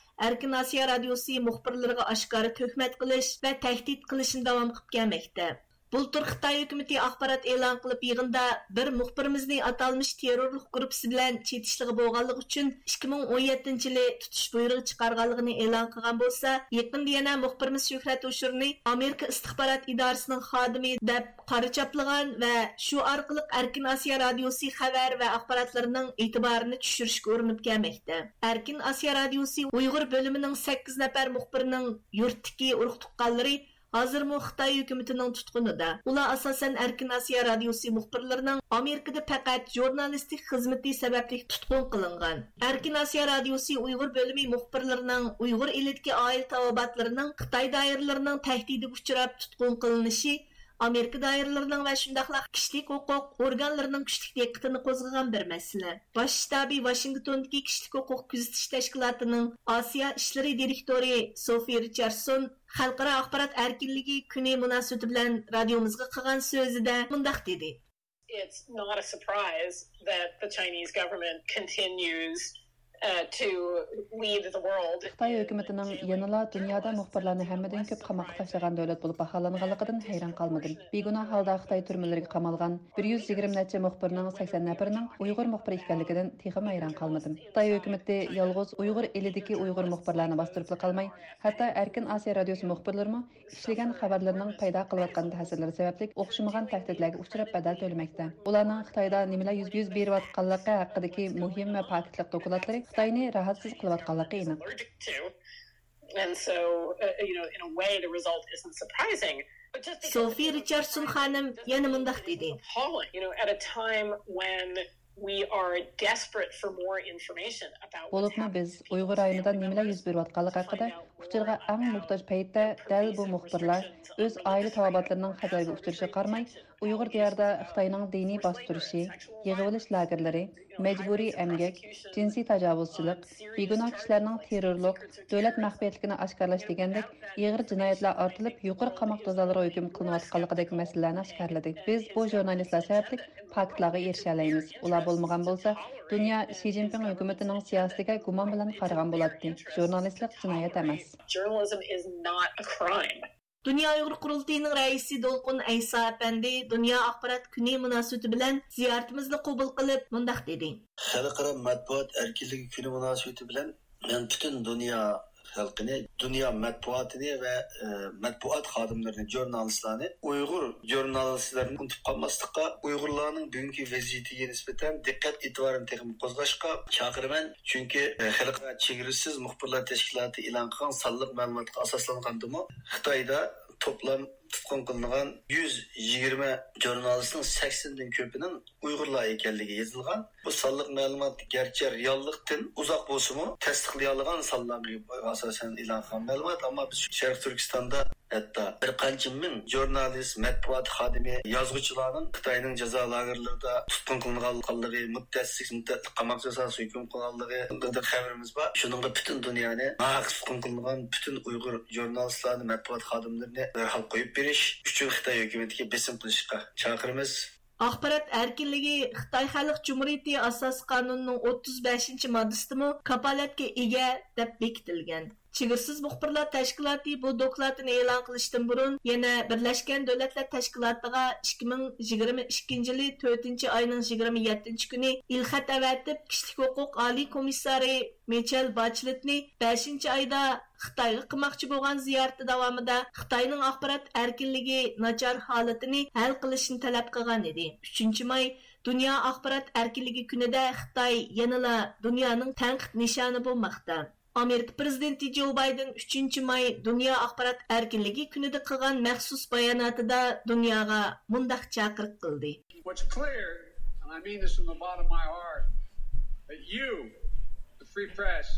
ئەركىن ئاسىيا رادىيوسى مۇخبىرلىرىغا ئاشكارا تۆھمەت قىلىش ۋە تەھدىت قىلىشنى داۋام قىلىپ كەلمەكتە. بۇلتۇر خىتاي ھۆكۈمىتى ئاخبارات ئېلان قىلىپ، يىغىندا بىر مۇخبىرىمىزنى ئاتالمىش تېررورلۇق گۇرۇپپىسى بىلەن چېتىشلىقى بولغانلىقى ئۈچۈن ئىككى مىڭ ئون يەتتىنچى يىلى تۇتۇش بۇيرۇغى چىقارغانلىقىنى ئېلان قىلغان بولسا، يېقىندا يەنە مۇخبىرىمىز شۆھرەت ھوشۇرنى ئامېرىكا ئىستىخبارات ئىدارىسىنىڭ خادىمى دەپ قارا چاپلىغان ۋە شۇ ئارقىلىق ئەركىن ئاسىيا رادىيوسى خەۋەر ۋە ئاخباراتلىرىنىڭ ئېتىبارىنى چۈشۈرۈشكە ئۇرۇنۇپ كەلمەكتە. ئەركىن ئاسىيا رادىيوسى ئۇيغۇر بۆلۈمىنىڭ سەككىز نەپەر مۇخبىرىنىڭ يۇرتتىكى ئۇرۇق تۇغقانلىرى ھازىرمۇ خىتاي ھۆكۈمىتىنىڭ تۇتقۇنىدا. ئۇلار ئاساسەن ئەركىن ئاسىيا رادىيوسى مۇخبىرلىرىنىڭ ئامېرىكىدا پەقەت ژۇرنالىستىك خىزمىتى سەۋەبلىك تۇتقۇن قىلىنغان. ئەركىن ئاسىيا رادىيوسى ئۇيغۇر بۆلۈمى مۇخبىرلىرىنىڭ ئۇيغۇر ئېلىدىكى ئائىلە تاۋابىئاتلىرىنىڭ خىتاي دائىرىلىرىنىڭ تەھدىتىگە ئۇچراپ تۇتقۇن قىلىنىشى ئامېرىكا دائىرىلىرىنىڭ ۋە شۇنداقلا كىشىلىك ھوقۇق ئورگانلىرىنىڭ كۈچلۈك دىققىتىنى قوزغىغان بىر مەسىلە. باش شتابى ۋاشىنگتوندىكى كىشىلىك ھوقۇق كۆزىتىش تەشكىلاتىنىڭ ئاسىيا ئىشلىرى دىرېكتورى سوفى رىچاردسون خەلقئارا ئاخبارات ئەركىنلىكى كۈنى مۇناسىۋىتى بىلەن رادىيومىزغا قىلغان سۆزىدە مۇنداق دېدى. It's not a surprise that the Chinese government continues uh, to lead the world. خىتاي ھۆكۈمىتىنىڭ يەنىلا دۇنيادا مۇخبىرلارنى ھەممىدىن كۆپ قاماققا تاشلىغان دۆلەت بولۇپ باھالانغانلىقىدىن ھەيران قالمىدىم. بىگۇناھ ھالدا خىتاي تۈرمىلىرىگە قامالغان بىر يۈز يىگىرمە نەچچە مۇخبىرنىڭ سەكسەن نەپىرىنىڭ ئۇيغۇر مۇخبىر ئىكەنلىكىدىن تېخىمۇ ھەيران قالمىدىم. خىتاي ھۆكۈمىتى يالغۇز ئۇيغۇر ئېلىدىكى ئۇيغۇر مۇخبىرلارنى باستۇرۇپلا قالماي، ھەتتا ئەركىن ئاسىيا رادىيوسى مۇخبىرلىرىمۇ ئىشلىگەن خەۋەرلىرىنىڭ پەيدا قىلىۋاتقان تەسىرلىرى سەۋەبلىك ئوخشىمىغان تەھدىتلەرگە ئۇچراپ بەدەل تۆلىمەكتە. ئۇلارنىڭ خىتايدا نېمىلەر يۈز، يۈز بېرىۋاتقانلىقى ھەققىدىكى مۇھىم ۋە پاكىتلىق دوكلاتلىرى خىتاينى راھەتسىز قىلىۋاتقانلىقى ئېنىق. And so, uh, you know, in a way, the result isn't surprising. But just because سوفىي رىچاردسون خانىم يەنە مۇنداق دېدى. Appalling, you know, at a time when we are desperate for more information about what's بولۇپمۇ بىز ئۇيغۇر رايونىدا نېمىلەر يۈز بېرىۋاتقانلىقى ھەققىدە ئۇچۇرغا ئەڭ موھتاج پەيتتە، دەل بۇ مۇخبىرلار ئۆز ئائىلە تاۋابىئاتلىرىنىڭ خەتەرگە ئۇچرىشىغا قارىماي، ئۇيغۇر دىيارىدا خىتاينىڭ دىنىي باستۇرۇشى، يىغىۋېلىش لاگېرلىرى، مەجبۇرىي ئەمگەك، جىنسىي تاجاۋۇزچىلىق، بىگۇناھ كىشىلەرنىڭ تېررورلۇق، دۆلەت مەخپىيەتلىكىنى ئاشكارىلاش دېگەندەك ئېغىر جىنايەتلەر ئارتىلىپ، يۇقىرى قاماق جازالىرىغا ھۆكۈم قىلىنىۋاتقانلىقىدەك مەسىلىلەرنى ئاشكارىلىدى. بىز بۇ ژۇرنالىستلار سەۋەبلىك پاكىتلارغا ئېرىشەلەيمىز. ئۇلار بولمىغان بولسا، دۇنيا شى جىنپىڭ ھۆكۈمىتىنىڭ سىياسىتىگە گۇمان بىلەن قارىغان بولاتتى. ژۇرنالىستلىق جىنايەت ئەمەس. Journalism is not a crime. دۇنيا ئۇيغۇر قۇرۇلتىيىنىڭ رەئىسى دولقۇن ئەيسا ئەپەندى دۇنيا ئاخبارات كۈنى مۇناسىۋىتى بىلەن زىيارىتىمىزنى قوبۇل قىلىپ مۇنداق دېدى. خەلقئارا مەتبۇئات ئەركىنلىكى كۈنى مۇناسىۋىتى بىلەن مەن پۈتۈن دۇنيا خەلقىنى، دۇنيا مەتبۇئاتىنى ۋە، ئە، مەتبۇئات خادىملىرىنى، ژۇرنالىستلارنى، ئۇيغۇر ژۇرنالىستلىرىنى ئۇنتۇپ قالماسلىققا، ئۇيغۇرلارنىڭ بۈگۈنكى ۋەزىيىتىگە نىسبەتەن دىققەت ئېتىبارىنى تېخىمۇ قوزغاشقا چاقىرىمەن. چۈنكى، ئە، خەلقئارا چېگرىسىز مۇخبىرلار تەشكىلاتى ئېلان قىلغان سانلىق مەلۇماتقا ئاساسلانغاندىمۇ، خىتايدا توپلام تۇتقۇن قىلىنغان يۈز يىگىرمە ژۇرنالىستنىڭ سەكسەندىن كۆپىنىڭ ئۇيغۇرلار ئىكەنلىكى يېزىلغان. بۇ سانلىق مەلۇمات گەرچە رېئاللىقتىن ئۇزاق بولسىمۇ، تەستىقلىيالىغان سانلارغا ئاساسەن ئېلان قىلغان مەلۇمات، ئەمما بىز شەرقىي تۈركىستاندا ھەتتا بىر قانچە مىڭ ژۇرنالىست، مەتبۇئات خادىمى، يازغۇچىلارنىڭ خىتاينىڭ جازا لاگېرلىرىدا تۇتقۇن قىلىنغانلىقى، مۇددەتسىز، مۇددەتلىك قاماق جازاسىغا ھۆكۈم قىلغانلىقى ھەققىدە خەۋىرىمىز بار. شۇنىڭغا پۈتۈن دۇنيانى ناھەق تۇتقۇن قىلىنغان پۈتۈن ئۇيغۇر ژۇرنالىستلارنى، مەتبۇئات خادىملىرىنى دەرھال قويۇپ بېرىش ئۈچۈن خىتاي ھۆكۈمىتىگە بېسىم قىلىشقا چاقىرىمىز. ئاخبارات ئەركىنلىكى خىتاي خەلق جۇمھۇرىيىتى ئاساسىي قانۇنىنىڭ ئوتتۇز بەشىنچى ماددىسىدىمۇ كاپالەتكە ئىگە دەپ بېكىتىلگەن. چېگرىسىز مۇخبىرلار تەشكىلاتى بۇ دوكلاتىنى ئېلان قىلىشتىن بۇرۇن، يەنە بىرلەشكەن دۆلەتلەر تەشكىلاتىغا ئىككى مىڭ يىگىرمە ئىككىنچى يىلى تۆتىنچى ئاينىڭ يىگىرمە يەتتىنچى كۈنى ئېلخەت ئەۋەتىپ، كىشىلىك ھوقۇق ئالىي كومىسسارى مىچېل باچېلېتنى بەشىنچى ئايدا خىتايغا قىلماقچى بولغان زىيارىتى داۋامىدا خىتاينىڭ ئاخبارات ئەركىنلىكى ناچار ھالىتىنى ھەل قىلىشنى تەلەپ قىلغان ئىدى. ئۈچىنچى ماي دۇنيا ئاخبارات ئەركىنلىكى كۈنىدە خىتاي يەنىلا دۇنيانىڭ تەنقىد نىشانى بولماقتا. ئامېرىكا پىرېزىدېنتى جو بايدېن ئۈچىنچى ماي دۇنيا ئاخبارات ئەركىنلىكى كۈنىدە قىلغان مەخسۇس باياناتىدا دۇنياغا مۇنداق چاقىرىق قىلدى. What's clear, and I mean this from the bottom of my heart, that you, the free press,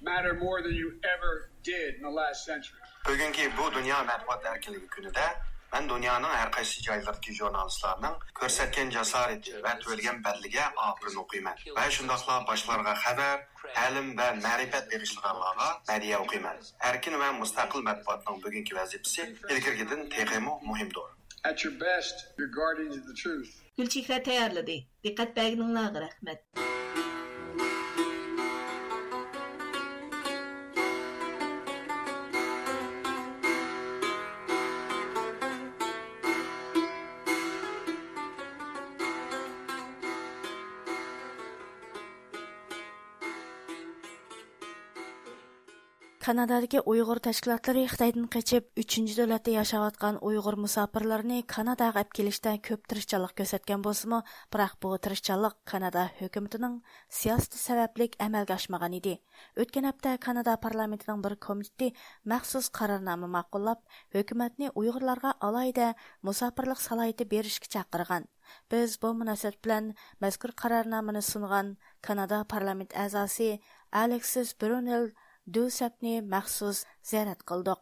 matter more than you ever did in the last century. بۈگۈنكى بۇ دۇنيا مەتبۇئات ئەركىنلىكى كۈنىدە مەن دۇنيانىڭ ھەر قايسى جايلىرىدىكى ژۇرنالىستلارنىڭ كۆرسەتكەن جاسارىتى ۋە تۆلىگەن بەدىلىگە ئاپىرىن ئوقۇيمەن ۋە شۇنداقلا باشقىلارغا خەۋەر، تەلىم ۋە مەرىپەت بېغىشلىغانلارغا مەدھىيە ئوقۇيمەن. ئەركىن ۋە مۇستەقىل مەتبۇئاتنىڭ بۈگۈنكى ۋەزىپىسى ئىلگىرىكىدىن تېخىمۇ مۇھىمدۇر. At your best, you're guardians of the truth. گۈلچېھرە تەييارلىدى. دىققەت بەرگىنىڭلارغا رەھمەت. كانادادىكى ئۇيغۇر تەشكىلاتلىرى خىتايدىن قېچىپ، ئۈچىنچى دۆلەتتە ياشاۋاتقان ئۇيغۇر مۇساپىرلىرىنى كاناداغا ئەپ كېلىشتە كۆپ تىرىشچانلىق كۆرسەتكەن بولسىمۇ، بىراق بۇ تىرىشچانلىق كانادا ھۆكۈمىتىنىڭ سىياسىتى سەۋەبلىك ئەمەلگە ئاشمىغان ئىدى. ئۆتكەن ھەپتە كانادا پارلامېنتىنىڭ بىر كومىتېتى مەخسۇس قارارنامە ماقۇللاپ، ھۆكۈمەتنى ئۇيغۇرلارغا ئالاھىدە مۇساپىرلىق سالاھىيىتى بېرىشكە چاقىرغان. بىز بۇ مۇناسىۋەت بىلەن مەزكۇر قارارنامىنى سۇنغان كانادا پارلامېنت ئەزاسى ئالېكسىس برۇنېل دۇسەپنى مەخسۇس زىيارەت قىلدۇق.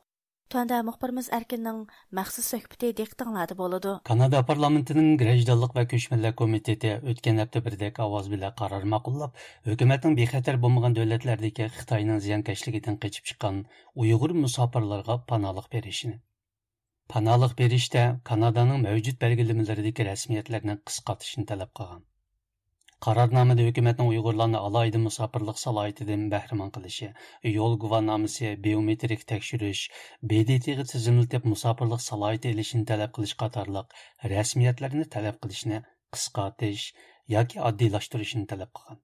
تۆۋەندە مۇخبىرىمىز ئەركىننىڭ مەخسۇس سۆھبىتى دىققىتىڭلاردا بولىدۇ. كانادا پارلامېنتىنىڭ گىرەجدانلىق ۋە كۆچمەنلەر كومىتېتى ئۆتكەن ھەپتە بىردەك ئاۋاز بىلەن قارار ماقۇللاپ، ھۆكۈمەتنىڭ بىخەتەر بولمىغان دۆلەتلەردىكى خىتاينىڭ زىيانكەشلىكىدىن قېچىپ چىققان ئۇيغۇر مۇساپىرلارغا پاناھلىق بېرىشىنى، پاناھلىق بېرىشتە كانادانىڭ مەۋجۇت بەلگىلىمىلىرىدىكى رەسمىيەتلەرنى قىسقارتىشنى تەلەپ قىلغان. قارارنامىدە ھۆكۈمەتنىڭ ئۇيغۇرلارنى ئالاھىدە مۇساپىرلىق سالاھىيىتىدىن بەھرىمەن قىلىشى، يول گۇۋاھنامىسى، بىيومېترىك تەكشۈرۈش، ب د ت غا تىزىملىتىپ مۇساپىرلىق سالاھىيىتى ئېلىشنى تەلەپ قىلىش قاتارلىق رەسمىيەتلەرنى تەلەپ قىلىشنى قىسقارتىش ياكى ئاددىيلاشتۇرۇشنى تەلەپ قىلغان.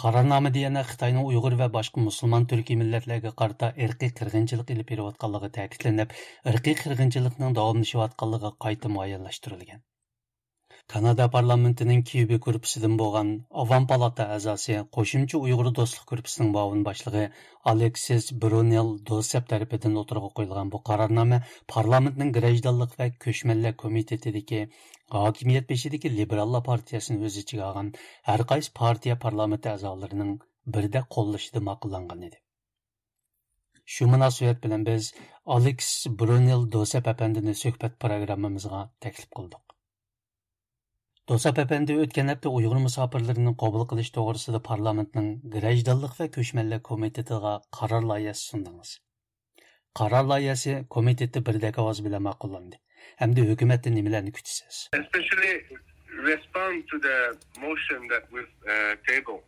قارارنامىدە يەنە خىتاينىڭ ئۇيغۇر ۋە باشقا مۇسۇلمان تۈركىي مىللەتلەرگە قارىتا ئىرقىي قىرغىنچىلىق ئېلىپ بېرىۋاتقانلىقى تەكىتلىنىپ، ئىرقىي قىرغىنچىلىقنىڭ داۋاملىشىۋاتقانلىقى قايتا مۇئەييەنلەشتۈرۈلگەن. كانادا پارلامېنتىنىڭ كيۇبى گۇرۇپپىسىدىن بولغان ئاۋام پالاتا ئەزاسى، قوشۇمچە ئۇيغۇر دوستلۇق گۇرۇپپىسىنىڭ مۇئاۋىن باشلىقى ئالېكسىس برۇنېل دوسەپ تەرىپىدىن ئوتتۇرىغا قويۇلغان بۇ قارارنامە پارلامېنتنىڭ گىرەجدانلىق ۋە كۆچمەنلەر كومىتېتىدىكى ھاكىمىيەت بېشىدىكى لىبېراللار پارتىيەسىنى ئۆز ئىچىگە ئالغان ھەر قايسى پارتىيە پارلامېنت ئەزالىرىنىڭ بىردەك قوللىشىدا ماقۇللانغان ئىدى. شۇ مۇناسىۋەت بىلەن بىز ئالېكس برۇنېل دوسەپ ئەپەندىنى سۆھبەت پىروگراممىمىزغا تەكلىپ قىلدۇق. دوسەپ ئەپەندى ئۆتكەن ھەپتە ئۇيغۇر مۇساپىرلىرىنى قوبۇل قىلىش توغرىسىدا پارلامېنتنىڭ گىرەجدانلىق ۋە كۆچمەنلەر كومىتېتىغا قارار لايىھەسى سۇندىڭىز. قارار لايىھەسى كومىتېتتا بىردەك ئاۋاز بىلەن ماقۇللاندى. ئەمدى ھۆكۈمەتتىن نېمىلەرنى كۈتىسىز؟ Especially respond to the motion that we've uh, tabled.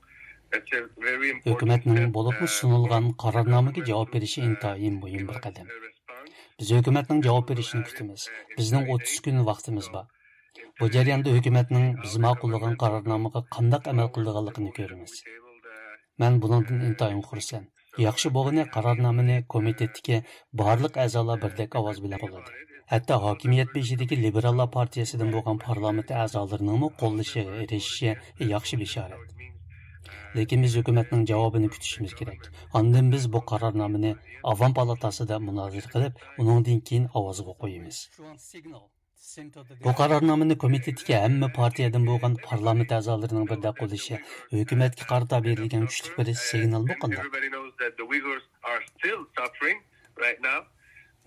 That's a very important ھۆكۈمەتنىڭ step, بولۇپمۇ uh, سۇنۇلغان قارارنامىغا جاۋاب بېرىشى ئىنتايىن مۇھىم بىر قەدەم. بىز ھۆكۈمەتنىڭ جاۋاب بېرىشىنى كۈتىمىز. بىزنىڭ ئوتتۇز كۈن ۋاقتىمىز بار. بۇ جەرياندا ھۆكۈمەتنىڭ بىز ماقۇللىغان قارارنامىغا قانداق ئەمەل قىلىدىغانلىقىنى كۆرىمىز. مەن بۇنىڭدىن ئىنتايىن خۇرسەن. ياخشى بولغىنى، قارارنامىنى كومىتېتتىكى بارلىق ئەزالار بىردەك ئاۋاز بىلەن قوللىدى. ھەتتا ھاكىمىيەت بېشىدىكى لىبېراللار پارتىيەسىدىن بولغان پارلامېنت ئەزالىرىنىڭمۇ قوللىشىغا ئېرىشىشى ياخشى بېشارەت. لېكىن بىز ھۆكۈمەتنىڭ جاۋابىنى كۈتۈشىمىز كېرەك. ئاندىن بىز بۇ قارارنامىنى ئاۋام پالاتاسىدا مۇنازىرە قىلىپ، ئۇنىڭدىن كېيىن ئاۋازغا قويىمىز. بۇ قارارنامىنى كومىتېتتىكى ھەممە پارتىيەدىن بولغان پارلامېنت ئەزالىرىنىڭ بىردەك قوللىشى ھۆكۈمەتكە قارىتا بېرىلگەن كۈچلۈك بىر سىگنالمۇ قانداق؟ Everybody knows that the Uyghurs are still suffering right now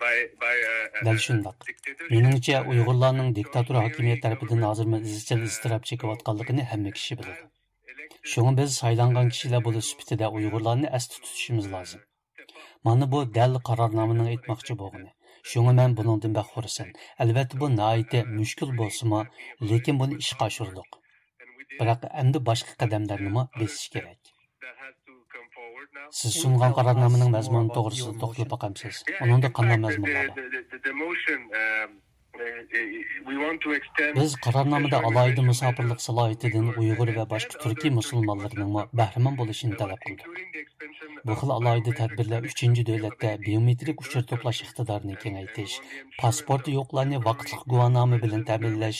by, by, uh, دەل شۇنداق. مېنىڭچە، ئۇيغۇرلارنىڭ دىكتاتور ھاكىمىيەت تەرىپىدىن ھازىرمۇ ئىزچىل ئىزتىراپ چېكىۋاتقانلىقىنى ھەممە كىشى بىلىدۇ. شۇڭا بىز سايلانغان كىشىلەر بولۇش سۈپىتىدە ئۇيغۇرلارنى ئەستە تۇتۇشىمىز لازىم. مانا بۇ دەل قارارنامىنىڭ ئېيتماقچى بولغىنى. شۇڭا مەن بۇنىڭدىن بەك خۇرسەن. ئەلۋەتتە، بۇ ناھايىتى مۈشكۈل بولسىمۇ، لېكىن بۇنى ئىشقا ئاشۇردۇق. بىراق ئەمدى باشقا قەدەملەرنىمۇ بېسىش كېرەك. سىز سۇنغان قارارنامىنىڭ مەزمۇنى توغرىسىدا توختىلىپ باقامسىز؟ ئۇنىڭدا قانداق مەزمۇنلار بار؟ بىز قارارنامىدا ئالاھىدە مۇساپىرلىق سالاھىيىتىدىن ئۇيغۇر ۋە باشقا تۈركىي مۇسۇلمانلىرىنىڭمۇ بەھرىمەن بولۇشىنى تەلەپ قىلدۇق. بۇ خىل ئالاھىدە تەدبىرلەر ئۈچىنچى دۆلەتتە بىيومېترىك ئۇچۇر توپلاش ئىقتىدارىنى كېڭەيتىش، پاسپورتى يوقلارنى ۋاقىتلىق گۇۋاھنامە بىلەن تەمىنلەش،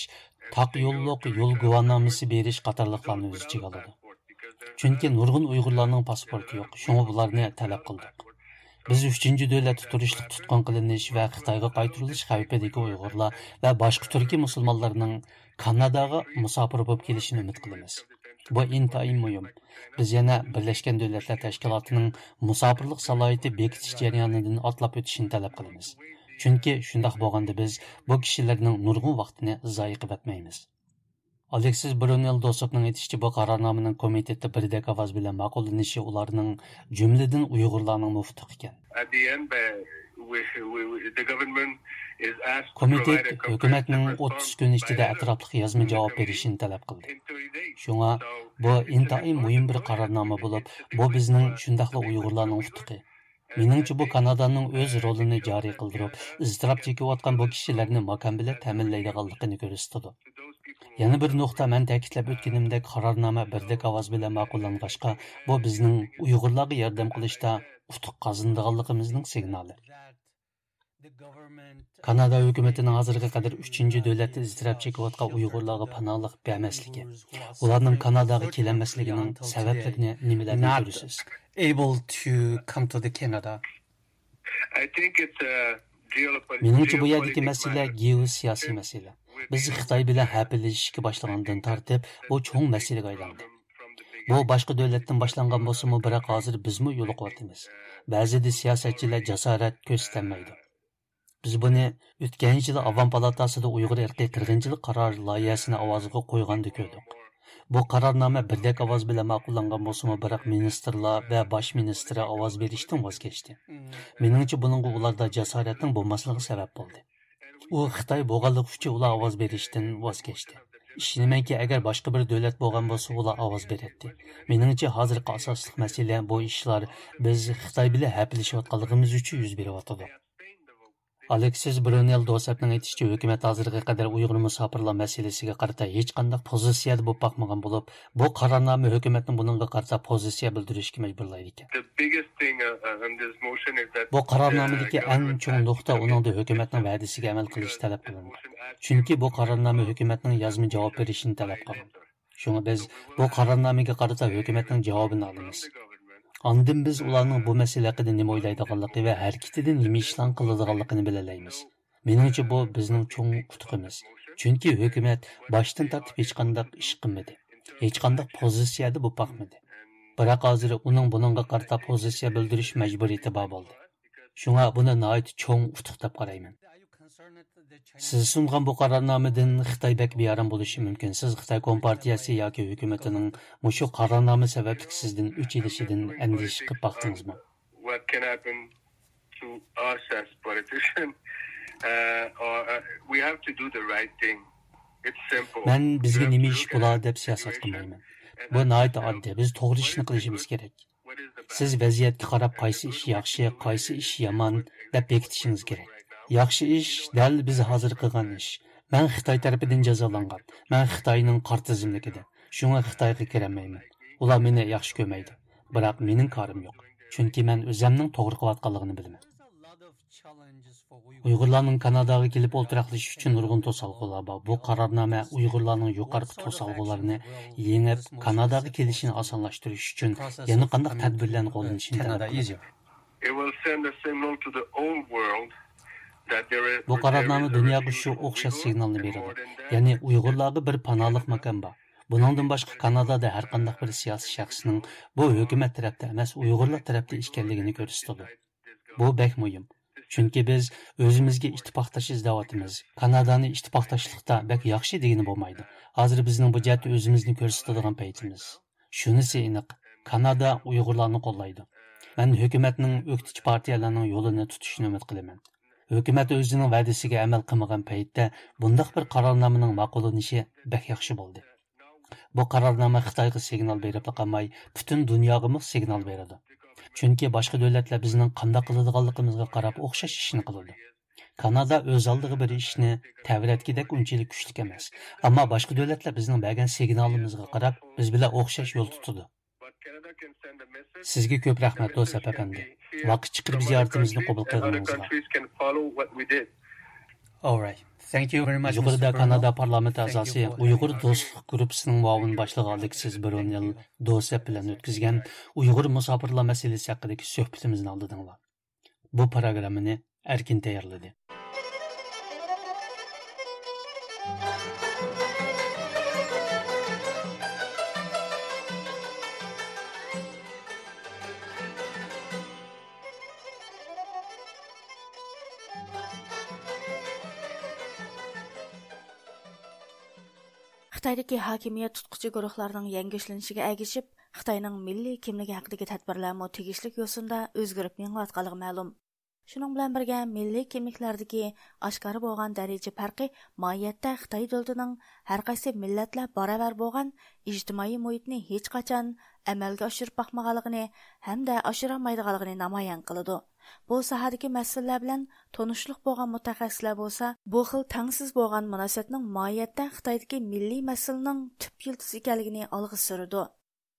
تاق يوللۇق يول گۇۋاھنامىسى بېرىش قاتارلىقلارنى ئۆز ئىچىگە ئالىدۇ. چۈنكى نۇرغۇن ئۇيغۇرلارنىڭ پاسپورتى يوق، شۇڭا بۇلارنى تەلەپ قىلدۇق. بىز ئۈچىنچى دۆلەتتە تۇرۇشلۇق تۇتقۇن قىلىنىش ۋە خىتايغا قايتۇرۇلۇش خەۋپىدىكى ئۇيغۇرلار ۋە باشقا تۈركىي مۇسۇلمانلارنىڭ كاناداغا مۇساپىر بولۇپ كېلىشىنى ئۈمىد قىلىمىز. بۇ ئىنتايىن مۇھىم. بىز يەنە بىرلەشكەن دۆلەتلەر تەشكىلاتىنىڭ مۇساپىرلىق سالاھىيىتى بېكىتىش جەريانىدىن ئاتلاپ ئۆتۈشىنى تەلەپ قىلىمىز. چۈنكى شۇنداق بولغاندا بىز بۇ كىشىلەرنىڭ نۇرغۇن ۋاقتىنى زايە قىلىۋەتمەيمىز. ئالېكسىس برۇنېل دوسوپنىڭ ئېيتىشىچە، بۇ قارارنامىنىڭ كومىتېتتا بىردەك ئاۋاز بىلەن ماقۇللىنىشى ئۇلارنىڭ جۈملىدىن ئۇيغۇرلارنىڭمۇ ئۇتۇقى ئىكەن. At the end, uh, we, we, we, the government is asked to provide كومىتېت a ھۆكۈمەتنىڭ comprehensive ئوتتۇز كۈن ئىچىدە response. ئەتراپلىق يازما جاۋاب بېرىشىنى تەلەپ قىلدى. In thirty days. شۇڭا بۇ ئىنتايىن مۇھىم بىر قارارنامە بولۇپ، بۇ بىزنىڭ شۇنداقلا ئۇيغۇرلارنىڭ ئۇتۇقى. مېنىڭچە، بۇ كانادانىڭ ئۆز رولىنى جارى قىلدۇرۇپ، ئىزتىراپ چېكىۋاتقان بۇ كىشىلەرنى ماكان بىلەن تەمىنلەيدىغانلىقىنى كۆرسىتىدۇ. يەنە بىر نۇقتا، مەن تەكىتلەپ ئۆتكىنىمدەك، قارارنامە بىردەك ئاۋاز بىلەن ماقۇللانغاچقا، بۇ بىزنىڭ ئۇيغۇرلارغا ياردەم قىلىشتا ئۇتۇق قازىنىدىغانلىقىمىزنىڭ سىگنالى. كانادا ھۆكۈمىتىنىڭ ھازىرغا قەدەر ئۈچىنچى دۆلەتتە ئىزتىراپ چېكىۋاتقان ئۇيغۇرلارغا پاناھلىق بەرمەسلىكى، ئۇلارنىڭ كاناداغا كېلەلمەسلىكىنىڭ سەۋەبلىرىنى نېمىلەردىن كۆرىسىز؟ Able to come to the Canada. I think it's a geopolitical مېنىڭچە، بۇ يەردىكى مەسىلە گېئوسىياسىي مەسىلە. بىز خىتاي بىلەن ھەپىلىشىشكە باشلىغاندىن تارتىپ، بۇ چوڭ مەسىلىگە ئايلاندى. بۇ باشقا دۆلەتتىن باشلانغان بولسىمۇ، بىراق ھازىر بىزمۇ يولۇقۇۋاتىمىز. بەزىدە سىياسەتچىلەر جاسارەت كۆرسىتەلمەيدۇ. بىز بۇنى ئۆتكەن يىلى ئاۋام پالاتاسىدا ئۇيغۇر ئىرقىي قىرغىنچىلىق قارار لايىھەسىنى ئاۋازغا قويغاندا كۆردۇق. بۇ قارارنامە بىردەك ئاۋاز بىلەن ماقۇللانغان بولسىمۇ، بىراق مىنىستىرلار ۋە باش مىنىستىر ئاۋاز بېرىشتىن ۋاز كەچتى. مېنىڭچە، بۇنىڭغا ئۇلاردا جاسارەتنىڭ بولماسلىقى سەۋەب بولدى. ئۇ خىتاي بولغانلىقى ئۈچۈن ئۇلار ئاۋاز بېرىشتىن ۋاز كەچتى. ئىشىنىمەنكى، ئەگەر باشقا بىر دۆلەت بولغان بولسا، ئۇلار ئاۋاز بېرەتتى. مېنىڭچە، ھازىرقى ئاساسلىق مەسىلە بۇ ئىشلار بىز خىتاي بىلەن ھەپىلىشىۋاتقانلىقىمىز ئۈچۈن يۈز بېرىۋاتىدۇ. ئالېكسىس برۇنېل دوسەپنىڭ ئېيتىشىچە، ھۆكۈمەت ھازىرغا قەدەر ئۇيغۇر مۇساپىرلار مەسىلىسىگە قارىتا ھېچقانداق پوزىتسىيەدە بولۇپ باقمىغان بولۇپ، بۇ قارارنامە ھۆكۈمەتنى بۇنىڭغا قارىتا پوزىتسىيە بىلدۈرۈشكە مەجبۇرلايدىكەن. The biggest thing, uh, uh, in this motion is that بۇ قارارنامىدىكى the ئەڭ government چوڭ has نۇقتا ئۇنىڭدا ھۆكۈمەتنىڭ ۋەدىسىگە ئەمەل قىلىشى تەلەپ قىلىنغان. چۈنكى بۇ قارارنامە ھۆكۈمەتنىڭ يازما جاۋاب بېرىشىنى تەلەپ قىلغان. شۇڭا بىز بۇ قارارنامىگە قارىتا ھۆكۈمەتنىڭ جاۋابىنى ئالىمىز. ئاندىن بىز ئۇلارنىڭ بۇ مەسىلە ھەققىدە نېمە ئويلايدىغانلىقى ۋە ھەرىكىتىدە نېمە ئىشلارنى قىلىدىغانلىقىنى بىلەلەيمىز. مېنىڭچە، بۇ بىزنىڭ چوڭ ئۇتۇقىمىز. چۈنكى ھۆكۈمەت باشتىن تارتىپ ھېچقانداق ئىش قىلمىدى. ھېچقانداق پوزىتسىيەدە بولۇپ باقمىدى. بىراق ھازىر ئۇنىڭ بۇنىڭغا قارىتا پوزىتسىيە بىلدۈرۈش مەجبۇرىيىتى بار بولدى. شۇڭا بۇنى ناھايىتى چوڭ ئۇتۇق دەپ قارايمەن. سىز سۇنغان بۇ قارارنامىدىن خىتاي بەك بىئارام بولۇشى مۇمكىن. سىز خىتاي كومپارتىيەسى ياكى ھۆكۈمىتىنىڭ مۇشۇ قارارنامە سەۋەبلىك سىزدىن ئۆچ ئېلىشىدىن ئەندىشە قىلىپ باقتىڭىزمۇ؟ What can happen to us as politicians? Uh, or, uh, we have to do the right thing. It's simple. مەن بىزگە نېمە ئىش بولا دەپ سىياسەت قىلمايمەن. بۇ ناھايىتى ئاددىي. بىز توغرا ئىشنى قىلىشىمىز كېرەك. سىز ۋەزىيەتكە قاراپ، قايسى ئىش ياخشى، قايسى ئىش يامان دەپ بېكىتىشىڭىز كېرەك. ياخشى ئىش دەل بىز ھازىر قىلغان ئىش. مەن خىتاي تەرىپىدىن جازالانغان. مەن خىتاينىڭ قارا تىزىملىكىدە. شۇڭا خىتايغا كىرەلمەيمەن. ئۇلار مېنى ياخشى كۆرمەيدۇ. بىراق مېنىڭ كارىم يوق. چۈنكى مەن ئۆزەمنىڭ توغرا قىلىۋاتقانلىقىنى بىلىمەن. ئۇيغۇرلارنىڭ كاناداغا كېلىپ ئولتۇراقلىشىش ئۈچۈن نۇرغۇن توسالغۇلار بار. بۇ قارارنامە ئۇيغۇرلارنىڭ يۇقىرىقى توسالغۇلارنى يېڭىپ، كاناداغا كېلىشىنى ئاسانلاشتۇرۇش ئۈچۈن يەنە قانداق تەدبىرلەرنى قوللىنىشنى تەلەپ قىلىدۇ. It will send a signal to the whole world that there is بۇ قارارنامە دۇنياغا شۇ ئوخشاش سىگنالنى بېرىدۇ. يەنى ئۇيغۇرلارغا بىر پاناھلىق ماكان بار. بۇنىڭدىن باشقا، كانادادا ھەر قانداق بىر سىياسىي شەخسنىڭ بۇ ھۆكۈمەت تەرەپتە ئەمەس، ئۇيغۇرلار تەرەپتە ئىكەنلىكىنى كۆرسىتىدۇ. بۇ بەك مۇھىم. چۈنكى بىز ئۆزىمىزگە ئىتتىپاقداش ئىزدەۋاتىمىز. كانادانى ئىتتىپاقداشلىقتا بەك ياخشى دېگىلى بولمايدۇ. ھازىر بىزنىڭ بۇ جەھەتتە ئۆزىمىزنى كۆرسىتىدىغان پەيتىمىز. شۇنىسى ئېنىق، كانادا ئۇيغۇرلارنى قوللايدۇ. مەن ھۆكۈمەتنىڭ ئۆكتىچى پارتىيەلەرنىڭ يولىنى تۇتۇشىنى ئۈمىد قىلىمەن. ھۆكۈمەت ئۆزىنىڭ ۋەدىسىگە ئەمەل قىلمىغان پەيتتە بۇنداق بىر قارارنامىنىڭ ماقۇللىنىشى بەك ياخشى بولدى. بۇ قارارنامە خىتايغا سىگنال بېرىپلا قالماي، پۈتۈن دۇنياغىمۇ سىگنال بېرىدۇ. چۈنكى باشقا دۆلەتلەر بىزنىڭ قانداق قىلىدىغانلىقىمىزغا قاراپ ئوخشاش ئىشنى قىلىدۇ. كانادا ئۆز ئالدىغا بىر ئىشنى تەۋرەتكۈدەك ئۇنچىلىك كۈچلۈك ئەمەس. ئەمما باشقا دۆلەتلەر بىزنىڭ بەرگەن سىگنالىمىزغا قاراپ بىز بىلەن ئوخشاش يول تۇتىدۇ. سىزگە كۆپ رەھمەت، دوسەپ ئەپەندى. ۋاقىت چىقىرىپ زىيارىتىمىزنى قوبۇل قىلغىنىڭىزغا. All right. Thank you very much, يۇقىرىدا كانادا پارلامېنت ئەزاسى، ئۇيغۇر دوستلۇق گۇرۇپپىسىنىڭ مۇئاۋىن باشلىقى ئالېكسىس برونېل دوسەپ بىلەن ئۆتكۈزگەن ئۇيغۇر مۇساپىرلار مەسىلىسى ھەققىدىكى سۆھبىتىمىزنى ئاڭلىدىڭلار. بۇ پروگراممىنى ئەركىن تەييارلىدى. خىتايدىكى ھاكىمىيەت تۇتقۇچى گۇرۇھلارنىڭ يەڭگۈشلىنىشىگە ئەگىشىپ، خىتاينىڭ مىللىي كىملىكى ھەققىدىكى تەدبىرلەرمۇ تېگىشلىك يوسۇندا ئۆزگىرىپ مېڭىۋاتقانلىقى مەلۇم. شۇنىڭ بىلەن بىرگە، مىللىي كىملىكلەردىكى ئاشكارا بولغان دەرىجە پەرقى ماھىيەتتە خىتاي دۆلىتىنىڭ ھەر قايسى مىللەتلەر باراۋەر بولغان ئىجتىمائىي مۇھىتنى ھېچقاچان ئەمەلگە ئاشۇرۇپ باقمىغانلىقىنى ھەمدە ئاشۇرالمايدىغانلىقىنى نامايان قىلىدۇ. بۇ ساھەدىكى مەسىلىلەر بىلەن تونۇشلۇق بولغان مۇتەخەسسىسلەر بولسا، بۇ خىل تەڭسىز بولغان مۇناسىۋەتنىڭ ماھىيەتتە خىتايدىكى مىللىي مەسىلىنىڭ تۈپ يىلتىزى ئىكەنلىكىنى ئالغا سۈرىدۇ.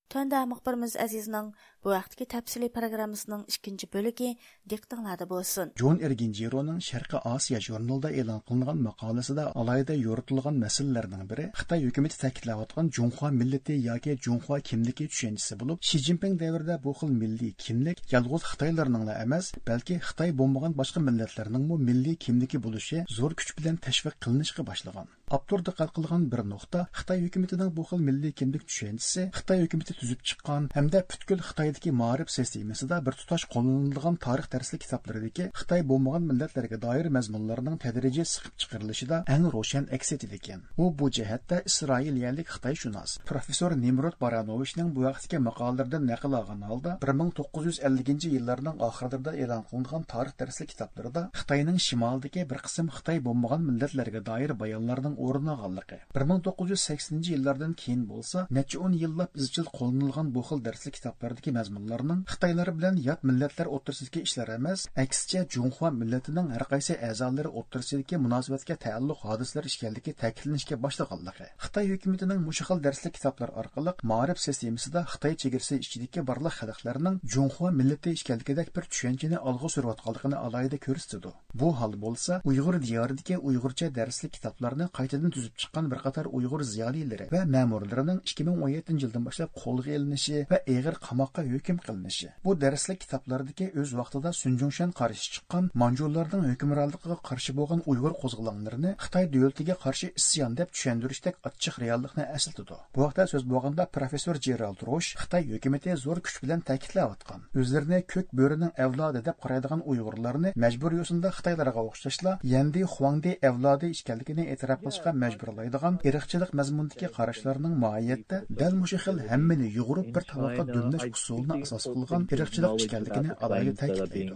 تۆۋەندە مۇخبىرىمىز ئەزىزنىڭ بۇ ھەقتىكى تەپسىلىي پروگراممىسىنىڭ ئىككىنچى بۆلىكى دىققىتىڭلاردا بولسۇن. جون ئېرگىنجىرونىڭ شەرقىي ئاسىيا ژۇرنىلىدا ئېلان قىلىنغان ماقالىسىدا ئالاھىدە يورۇتۇلغان مەسىلىلەرنىڭ بىرى خىتاي ھۆكۈمىتى تەكىتلەۋاتقان جۇڭخۇا مىللىتى ياكى جۇڭخۇا كىملىكى چۈشەنچىسى بولۇپ، شى جىنپىڭ دەۋرىدە بۇ خىل مىللىي كىملىك يالغۇز خىتايلارنىڭلا ئەمەس، بەلكى خىتاي بولمىغان باشقا مىللەتلەرنىڭمۇ مىللىي كىملىكى بولۇشى زور كۈچ بىلەن تەشۋىق قىلىنىشقا باشلىغان. ئاپتور دىققەت قىلغان بىر نۇقتا، خىتاي ھۆكۈمىتىنىڭ بۇ خىل مىللىي كىملىك چۈشەنچىسى خىتاي ھۆكۈمىتى تۈزۈپ چىققان ھەمدە پۈتكۈل خىتاي خىتايدىكى مائارىپ سىستېمىسىدا بىر تۇتاش قوللىنىلىدىغان تارىخ دەرسلىك كىتابلىرىدىكى خىتاي بولمىغان مىللەتلەرگە دائىر مەزمۇنلارنىڭ تەدرىجىي سىقىپ چىقىرىلىشىدا ئەڭ روشەن ئەكس ئېتىدىكەن. ئۇ بۇ جەھەتتە ئىسرائىلىيەلىك خىتايشۇناس پروفېسسور نىمرود بارانوۋىچنىڭ بۇ ھەقتىكى ماقالىلىرىدىن نەقىل ئالغان ھالدا، بىر مىڭ توققۇز يۈز ئەللىكىنچى يىللارنىڭ ئاخىرلىرىدا ئېلان قىلىنغان تارىخ دەرسلىك كىتابلىرىدا خىتاينىڭ شىمالىدىكى بىر قىسىم خىتاي بولمىغان مىللەتلەرگە دائىر بايانلارنىڭ ئورۇن ئالغانلىقى، بىر مىڭ توققۇز يۈز سەكسىنىنچى يىللاردىن كېيىن بولسا نەچچە ئون يىللاپ ئىزچىل قوللىنىلغان بۇ خىل دەرسلىك كىتابلىرىدىكى مەزمۇنلارنىڭ خىتايلار بىلەن يات مىللەتلەر ئوتتۇرىسىدىكى ئىشلار ئەمەس، ئەكسىچە جۇڭخۇا مىللىتىنىڭ ھەر قايسى ئەزالىرى ئوتتۇرىسىدىكى مۇناسىۋەتكە تەئەللۇق ھادىسىلەر ئىكەنلىكى تەكىتلىنىشكە باشلىغانلىقى، خىتاي ھۆكۈمىتىنىڭ مۇشۇ خىل دەرسلىك كىتابلار ئارقىلىق مائارىپ سىستېمىسىدا خىتاي چېگرىسى ئىچىدىكى بارلىق خەلقلەرنىڭ جۇڭخۇا مىللىتى ئىكەنلىكىدەك بىر چۈشەنچىنى ئالغا سۈرۈۋاتقانلىقىنى ئالاھىدە كۆرسىتىدۇ. بۇ ھال بولسا ئۇيغۇر دىيارىدىكى ئۇيغۇرچە دەرسلىك كىتابلارنى قايتىدىن تۈزۈپ چىققان بىر قاتار ئۇيغۇر زىيالىيلىرى ۋە مەمۇرلىرىنىڭ ئىككى مىڭ ئون يەتتىنچى يىلدىن باشلاپ قولغا ئېلىنىشى ۋە ئېغىر قاماققا ھۆكۈم قىلىنىشى، بۇ دەرسلىك كىتابلاردىكى ئۆز ۋاقتىدا سۈن جۇڭشەن قارشى چىققان، مانجۇلارنىڭ ھۆكۈمرانلىقىغا قارشى بولغان ئۇيغۇر قوزغىلاڭلىرىنى خىتاي دۆلىتىگە قارشى ئىسيان دەپ چۈشەندۈرۈشتەك ئاچچىق رېئاللىقنى ئەسلىتىدۇ. بۇ ھەقتە سۆز بولغاندا، پروفېسسور جېرالد روش خىتاي ھۆكۈمىتى زور كۈچ بىلەن تەكىتلەۋاتقان، ئۆزلىرىنى كۆك بۆرىنىڭ ئەۋلادى دەپ قارايدىغان ئۇيغۇرلارنى مەجبۇرىي يوسۇندا خىتايلارغا ئوخشاشلا يەندى خۇاڭدى ئەۋلادى ئىكەنلىكىنى ئېتىراپ قىلىشقا مەجبۇرلايدىغان ئىرقچىلىق مەزمۇنىدىكى قاراشلارنىڭ ماھىيەتتە دەل مۇشۇ خىل ھەممىنى يۇغۇرۇپ بىر تاۋاققا دۈملەش ئۇسۇلىنى ئاساس قىلغان ئىرقچىلىق ئىكەنلىكىنى ئالاھىدە تەكىتلەيدۇ.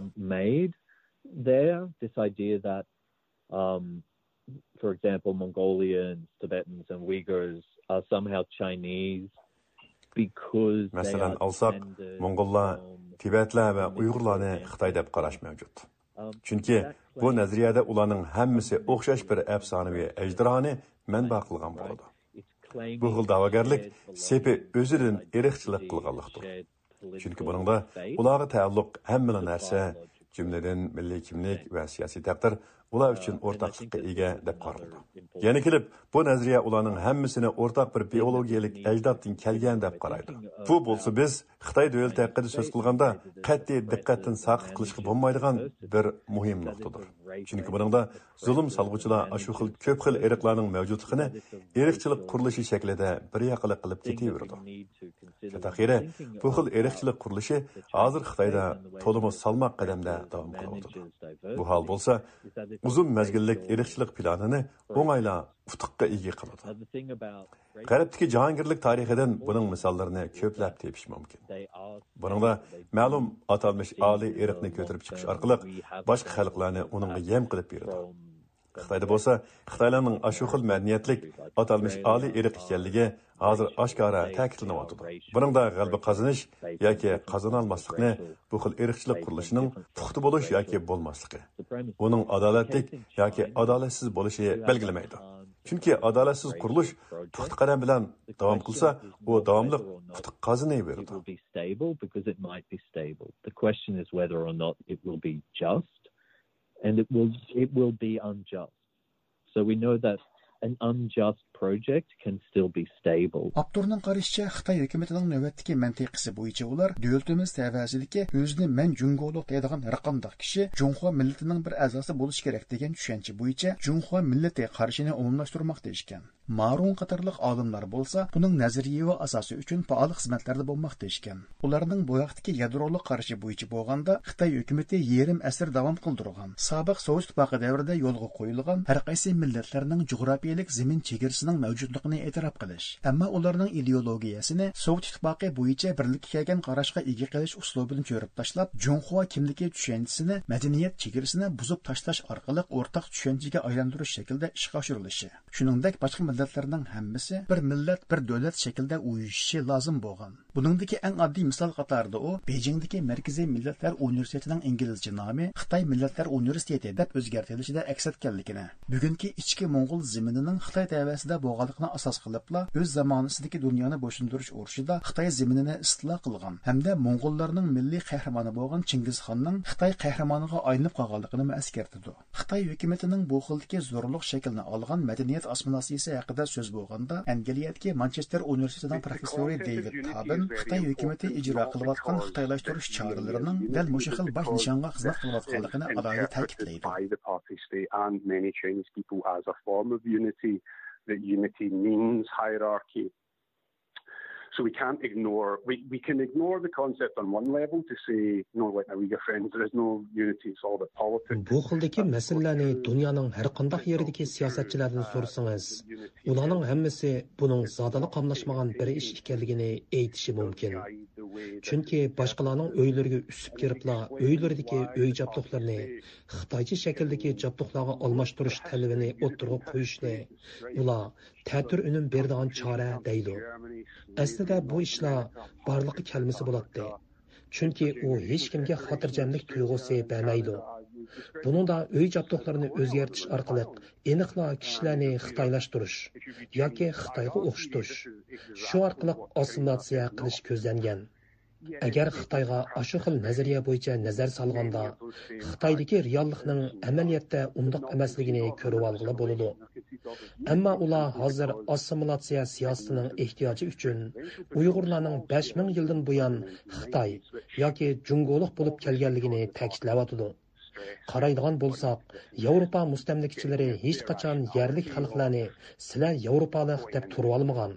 There, this idea that, um, for example, Mongolians, Tibetans, and Uyghurs are somehow Chinese because they مەسىلەن ئالساق، موڭغۇللار، تىبەتلەر ۋە ئۇيغۇرلارنى خىتاي دەپ قاراش مەۋجۇت. چۈنكى بۇ نەزەرىيەدە ئۇلارنىڭ ھەممىسى ئوخشاش بىر ئەپسانىۋى ئەجدىھانى مەنبە قىلغان بولىدۇ. بۇ خىل دەۋاگەرلىك سېپى ئۆزىدىن ئىرقچىلىق قىلغانلىقتۇر. چۈنكى بۇنىڭدا ئۇلارغا تەئەللۇق ھەممىلا نەرسە، جۈملىدىن مىللىي كىملىك ۋە سىياسىي تەقدىر ئۇلار ئۈچۈن ئورتاقلىققا ئىگە دەپ قارىلىدۇ. يەنە كېلىپ، بۇ نەزەرىيە ئۇلارنىڭ ھەممىسىنى ئورتاق بىر بىئولوگىيەلىك ئەجدادتىن كەلگەن دەپ قارايدۇ. بۇ بولسا بىز خىتاي دۆلىتى ھەققىدە سۆز قىلغاندا قەتئىي دىققەتتىن ساقىت قىلىشقا بولمايدىغان بىر مۇھىم نۇقتىدۇر. چۈنكى بۇنىڭدا زۇلۇم سالغۇچىلار ئاشۇ خىل كۆپ خىل ئىرقلارنىڭ مەۋجۇتلۇقىنى ئىرقچىلىق قۇرۇلۇشى شەكلىدە بىر ياقىلىق قىلىپ كېتىۋېرىدۇ. تەتەخىرى، بۇ خىل ئىرقچىلىق قۇرۇلۇشى ھازىر خىتايدا تولىمۇ سالماق قەدەمدە داۋام قىلىۋاتىدۇ. بۇ ھال بولسا، ئۇزۇن مەزگىللىك ئىرقچىلىق پىلانىنى ئوڭايلا ئۇتۇققا ئىگە قىلىدۇ. غەربتىكى جاھانگىرلىك تارىخىدىن بۇنىڭ مىساللىرىنى كۆپلەپ تېپىش مۇمكىن. بۇنىڭدا مەلۇم ئاتالمىش ئالىي ئىرقنى كۆتۈرۈپ چىقىش ئارقىلىق باشقا خەلقلەرنى ئۇنىڭغا يەم قىلىپ بېرىدۇ. خىتايدا بولسا خىتايلارنىڭ ئاشۇ خىل مەدەنىيەتلىك ئاتالمىش ئالىي ئىرق ئىكەنلىكى ھازىر ئاشكارا تەكىتلىنىۋاتىدۇ. بۇنىڭدا غەلىبە قازىنىش ياكى قازىنالماسلىقنى بۇ خىل ئىرقچىلىق قۇرۇلۇشىنىڭ پۇختا بولۇش ياكى بولماسلىقى، ئۇنىڭ ئادالەتلىك ياكى ئادالەتسىز بولۇشى بەلگىلىمەيدۇ. چۈنكى ئادالەتسىز قۇرۇلۇش پۇختا قەدەم بىلەن داۋام قىلسا، ئۇ داۋاملىق ئۇتۇق قازىنىۋېرىدۇ. It will be stable because it might be stable. The question is whether or not it will be just, and it will, it will be unjust. So we know that an unjust project can still be stable. ئاپتورنىڭ قارىشىچە، خىتاي ھۆكۈمىتىنىڭ نۆۋەتتىكى مەنتىقىسى بويىچە ئۇلار دۆلىتىمىز تەۋەسىدىكى ئۆزىنى مەن جۇڭگولۇق دەيدىغان ھەرقانداق كىشى جۇڭخۇا مىللىتىنىڭ بىر ئەزاسى بولۇشى كېرەك دېگەن چۈشەنچە بويىچە جۇڭخۇا مىللىتى قارىشىنى ئومۇملاشتۇرماقتا ئىكەن. مارۇڭ قاتارلىق ئالىملار بولسا بۇنىڭ نەزەرىيىۋى ئاساسى ئۈچۈن پائال خىزمەتلەردە بولماقتا ئىكەن. ئۇلارنىڭ بۇ ھەقتىكى يادرولۇق قارىشى بويىچە بولغاندا، خىتاي ھۆكۈمىتى يېرىم ئەسىر داۋام قىلدۇرغان سابىق سوۋېت ئىتتىپاقى دەۋرىدە يولغا قويۇلغان ھەر قايسى مىللەتلەرنىڭ جۇغراپىيەلىك زېمىن چېگرىسىنىڭ مەۋجۇتلۇقىنى ئېتىراپ قىلىش، ئەمما ئۇلارنىڭ ئىدېئولوگىيەسىنى سوۋېت ئىتتىپاقى بويىچە بىرلىككە كەلگەن قاراشقا ئىگە قىلىش ئۇسلۇبىنى چۆرۈپ تاشلاپ، جۇڭخۇا كىملىكى چۈشەنچىسىنى مەدەنىيەت چېگرىسىنى بۇزۇپ تاشلاش ئارقىلىق ئورتاق چۈشەنچىگە ئايلاندۇرۇش شەكلىدە ئىشقا ئاشۇرۇلۇشى. شۇنىڭدەك باشقا مىللەتلەرنىڭ ھەممىسى بىر مىللەت، بىر دۆلەت شەكلىدە ئۇيۇشۇشى لازىم بولغان. بۇنىڭدىكى ئەڭ ئاددىي مىسال قاتارىدا ئۇ بېيجىڭدىكى مەركىزىي مىللەتلەر ئۇنىۋېرسىتېتىنىڭ ئىنگلىزچە نامى خىتاي مىللەتلەر ئۇنىۋېرسىتېتى دەپ ئۆزگەرتىلىشىدە ئەكس ئەتكەنلىكىنى، بۈگۈنكى ئىچكى موڭغۇل زېمىنىنىڭ خىتاي تەۋەسىدە بولغانلىقىنى ئاساس قىلىپلا، ئۆز زامانىسىدىكى دۇنيانى بويسۇندۇرۇش ئۇرۇشىدا خىتاي زېمىنىنى ئىستىلا قىلغان ھەمدە موڭغۇللارنىڭ مىللىي قەھرىمانى بولغان چىڭگىزخاننىڭ خىتاي قەھرىمانىغا ئايلىنىپ قالغانلىقىنىمۇ ئەسكەرتىدۇ. خىتاي ھۆكۈمىتىنىڭ بۇ خىلدىكى زورلۇق شەكلىنى ئالغان مەدەنىيەت ئاسسىمىلياتسىيىسى ھەققىدە سۆز بولغاندا، ئەنگلىيەدىكى مانچېستېر ئۇنىۋېرسىتېتىنىڭ پروفېسسورى دېۋىد تابىن خىتاي ھۆكۈمىتى ئىجرا قىلىۋاتقان خىتايلاشتۇرۇش چارىلىرىنىڭ دەل مۇشۇ خىل باش نىشانغا خىزمەت قىلىۋاتقانلىقىنى ئالاھىدە تەكىتلەيدۇ. By the party state and many Chinese people as a form of unity, that unity means hierarchy. So we can't ignore, we, we can ignore the concept on one level to say, no, like, now we're friends, there is no unity, it's all about politics. بۇ خىلدىكى مەسىلىلەرنى دۇنيانىڭ ھەر قانداق يېرىدىكى سىياسەتچىلەردىن سورىسىڭىز، ئۇلارنىڭ ھەممىسى بۇنىڭ زادىلا قاملاشمىغان بىر ئىش ئىكەنلىكىنى ئېيتىشى مۇمكىن. چۈنكى باشقىلارنىڭ ئۆيلىرىگە ئۈسۈپ كىرىپلا، ئۆيلىرىدىكى ئۆي جابدۇقلىرىنى خىتايچە شەكىلدىكى جابدۇقلارغا ئالماشتۇرۇش تەلىپىنى ئوتتۇرىغا قويۇشنى ئۇلار تەتۈر ئۈنۈم بېرىدىغان چارە دەيدۇ. ئەسلىدە بۇ ئىشلار بارلىققا كەلمىسە بولاتتى. چۈنكى ئۇ ھېچكىمگە خاتىرجەملىك تۇيغۇسى بەرمەيدۇ. بۇنىڭدا ئۆي جابدۇقلىرىنى ئۆزگەرتىش ئارقىلىق ئېنىقلا كىشىلەرنى خىتايلاشتۇرۇش ياكى خىتايغا ئوخشىتىش، شۇ ئارقىلىق ئاسسىمىلياتسىيە قىلىش كۆزلەنگەن. ئەگەر خىتايغا ئاشۇ خىل نەزەرىيە بويىچە نەزەر سالغاندا، خىتايدىكى رېئاللىقنىڭ ئەمەلىيەتتە ئۇنداق ئەمەسلىكىنى كۆرۈۋالغىلى بولىدۇ. ئەمما ئۇلار ھازىر ئاسسىمىلياتسىيە سىياسىتىنىڭ ئېھتىياجى ئۈچۈن ئۇيغۇرلارنىڭ بەش مىڭ يىلدىن بۇيان خىتاي ياكى جۇڭگولۇق بولۇپ كەلگەنلىكىنى تەكىتلەۋاتىدۇ. قارايدىغان بولساق، ياۋروپا مۇستەملىكىچىلىرى ھېچقاچان يەرلىك خەلقلەرنى سىلەر ياۋروپالىق دەپ تۇرۇۋالمىغان.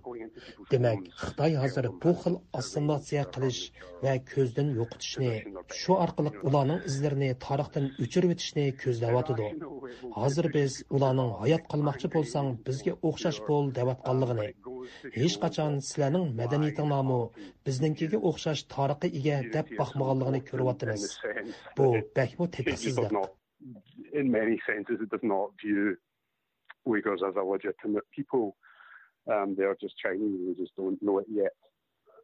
دېمەك، خىتاي ھازىر بۇ خىل ئاسسىمىلياتسىيە قىلىش ۋە كۆزدىن يوقىتىشنى، شۇ ئارقىلىق ئۇلارنىڭ ئىزلىرىنى تارىختىن ئۆچۈرۈۋېتىشنى كۆزلەۋاتىدۇ. ھازىر بىز ئۇلارنىڭ ھايات قالماقچى بولساڭ بىزگە ئوخشاش بول دەۋاتقانلىقىنى، ھېچقاچان سىلەرنىڭ مەدەنىيىتىڭلارمۇ بىزنىڭكىگە ئوخشاش تارىخقا ئىگە دەپ باقمىغانلىقىنى كۆرۈۋاتىمىز. بۇ بەكمۇ تېتىقسىزلىق. In many senses, it does not view Uyghurs as a legitimate people. Um, they are just Chinese, they just don't know it yet.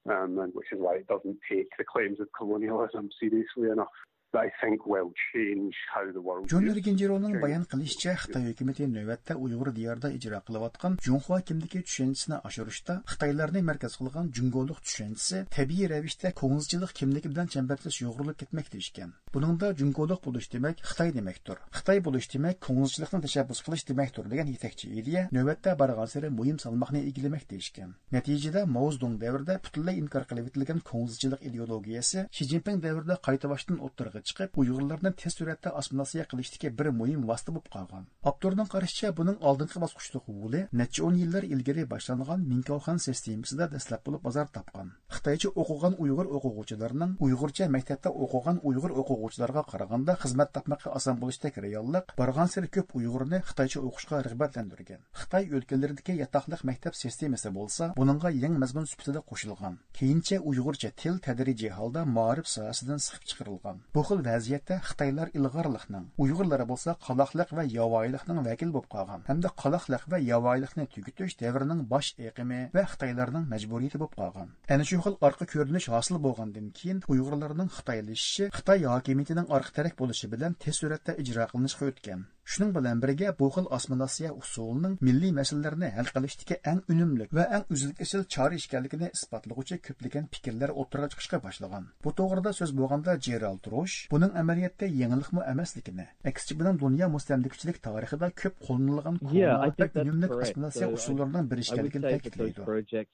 Um, and which is why it doesn't take the claims of colonialism seriously enough. That I think will change how the world جون views ئېرگېنجىرونىڭ بايان قىلىشىچە، خىتاي ھۆكۈمىتى نۆۋەتتە ئۇيغۇر دىيارىدا ئىجرا قىلىۋاتقان جۇڭخۇا كىملىكى چۈشەنچىسىنى ئاشۇرۇشتا خىتايلارنى مەركەز قىلغان جۇڭگولۇق چۈشەنچىسى تەبىئىي رەۋىشتە كوڭزىچىلىق كىملىكى بىلەن چەمبەرچاس يۇغۇرۇلۇپ كەتمەكتە ئىكەن. بۇنىڭدا جۇڭگولۇق بولۇش دېمەك خىتاي دېمەكتۇر. خىتاي بولۇش دېمەك كوڭزىچىلىقنى تەشەببۇس قىلىش دېمەكتۇر دېگەن يېتەكچى ئىدىيە نۆۋەتتە بارغانسېرى مۇھىم سالماقنى ئىگىلىمەكتە ئىكەن. نەتىجىدە ماۋزېدۇڭ دەۋرىدە پۈتۈنلەي ئىنكار قىلىۋېتىلگەن كوڭزىچىلىق ئىدېئولوگىيەسى شى جىنپىڭ دەۋرىدە قايتا باشتىن ئوتتۇرىغا چىقىپ، ئۇيغۇرلارنى تېز سۈرئەتتە ئاسسىمىلياتسىيە قىلىشتىكى بىر مۇھىم ۋاسىتە بولۇپ قالغان. ئاپتورنىڭ قارىشىچە، بۇنىڭ ئالدىنقى باسقۇچلۇق ئۇلى نەچچە ئون يىللار ئىلگىرى باشلانغان مىنكاۋخەن سىستېمىسىدا دەسلەپ بولۇپ بازار تاپقان. خىتايچە ئوقۇغان ئۇيغۇر ئوقۇغۇچىلارنىڭ ئۇيغۇرچە مەكتەپتە ئوقۇغان ئۇيغۇر ئوقۇغۇچىلارغا قارىغاندا خىزمەت تاپماققا ئاسان بولۇشتەك رېئاللىق بارغانسېرى كۆپ ئۇيغۇرنى خىتايچە ئوقۇشقا رىغبەتلەندۈرگەن. خىتاي ئۆلكىلىرىدىكى ياتاقلىق مەكتەپ سىستېمىسى بولسا بۇنىڭغا يېڭى مەزمۇن سۈپىتىدە قوشۇلغان. كېيىنچە ئۇيغۇرچە تىل تەدرىجىي ھالدا مائارىپ ساھەسىدىن سىقىپ چىقىرىلغان. بۇ خىل ۋەزىيەتتە خىتايلار ئىلغارلىقنىڭ، ئۇيغۇرلار بولسا قالاقلىق ۋە ياۋايىلىقنىڭ ۋەكىلى بولۇپ قالغان ھەمدە قالاقلىق ۋە ياۋايىلىقنى تۈگىتىش دەۋرنىڭ باش ئېقىمى ۋە خىتايلارنىڭ مەجبۇرىيىتى بولۇپ قالغان. ئەنە شۇ خىل ئارقا كۆرۈنۈش ھاسىل بولغاندىن كېيىن، ئۇيغۇرلارنىڭ خىتايلىشىشى خىتاي ھاكىمىيىتىنىڭ ئارقا تىرەك بولۇشى بىلەن تېز سۈرئەتتە ئىجرا قىلىنىشقا ئۆتكەن. شۇنىڭ بىلەن بىرگە، بۇ خىل ئاسسىمىلياتسىيە ئۇسۇلىنىڭ مىللىي مەسىلىلەرنى ھەل قىلىشتىكى ئەڭ ئۈنۈملۈك ۋە ئەڭ ئۈزۈل-كېسىل چارە ئىكەنلىكىنى ئىسپاتلىغۇچى كۆپلىگەن پىكىرلەر ئوتتۇرىغا چىقىشقا باشلىغان. بۇ توغرىدا سۆز بولغاندا، جېرالد روش بۇنىڭ ئەمەلىيەتتە يېڭىلىقمۇ ئەمەسلىكىنى، ئەكسىچە بۇنىڭ دۇنيا مۇستەملىكىچىلىك تارىخىدا كۆپ قوللىنىلغان كونا ۋە ئۈنۈملۈك ئاسسىمىلياتسىيە ئۇسۇللىرىنىڭ بىرى ئىكەنلىكىنى تەكىتلەيدۇ.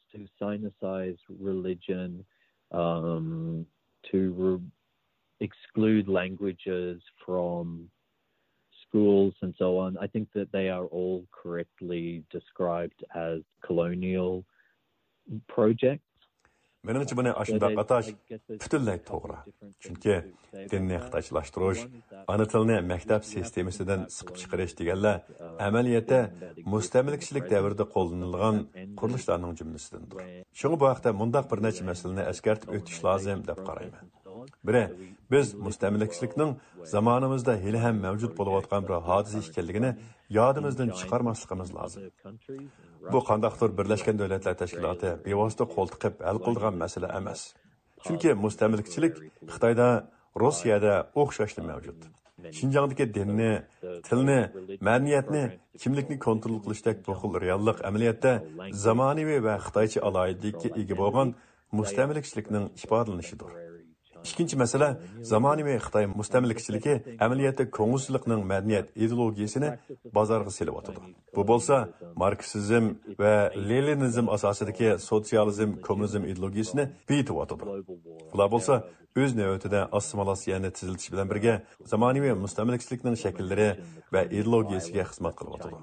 To sinicize religion, um, to re- exclude languages from schools and so on. I think that they are all correctly described as colonial projects. مېنىڭچە بۇنى ئاشۇنداق ئاتاش پۈتۈنلەي توغرا. چۈنكى دىننى خىتايچىلاشتۇرۇش، ئانا تىلنى مەكتەپ سىستېمىسىدىن سىقىپ چىقىرىش دېگەنلەر ئەمەلىيەتتە مۇستەملىكىچىلىك دەۋرىدە قوللىنىلغان قۇرۇلۇشلارنىڭ جۈملىسىدىندۇر. شۇڭا بۇ ھەقتە مۇنداق بىر نەچچە مەسىلىنى ئەسكەرتىپ ئۆتۈش لازىم دەپ قارايمەن. بىرى، بىز مۇستەملىكىچىلىكنىڭ زامانىمىزدا ھېلىھەم مەۋجۇت بولۇۋاتقان بىر ھادىسە ئىكەنلىكىنى يادىمىزدىن چىقارماسلىقىمىز لازىم. بۇ قانداقتۇر بىرلەشكەن دۆلەتلەر تەشكىلاتى بىۋاسىتە قول تىقىپ ھەل قىلىدىغان مەسىلە ئەمەس. چۈنكى مۇستەملىكىچىلىك خىتايدا، روسىيەدە ئوخشاشلا مەۋجۇت. شىنجاڭدىكى دىننى، تىلنى، مەدەنىيەتنى، كىملىكنى كونترول قىلىشتەك بۇ خىل رېئاللىق ئەمەلىيەتتە زامانىۋى ۋە خىتايچە ئالاھىدىلىككە ئىگە بولغان مۇستەملىكىچىلىكنىڭ ئىپادىلىنىشىدۇر. ئىككىنچى مەسىلە، زامانىۋى خىتاي مۇستەملىكىچىلىكى ئەمەلىيەتتە كوڭزىچىلىقنىڭ مەدەنىيەت ئىدېئولوگىيىسىنى بازارغا سېلىۋاتىدۇ. بۇ بولسا ماركسىزم ۋە لېنىنىزم ئاساسىدىكى سوتسىيالىزم، كوممۇنىزم ئىدېئولوگىيىسىنى بېيىتىۋاتىدۇ. بۇلار بولسا ئۆز نۆۋىتىدە ئاسسىمىلياتسىيەنى تېزلىتىش بىلەن بىرگە زامانىۋى مۇستەملىكىچىلىكنىڭ شەكىللىرى ۋە ئىدېئولوگىيىسىگە خىزمەت قىلىۋاتىدۇ.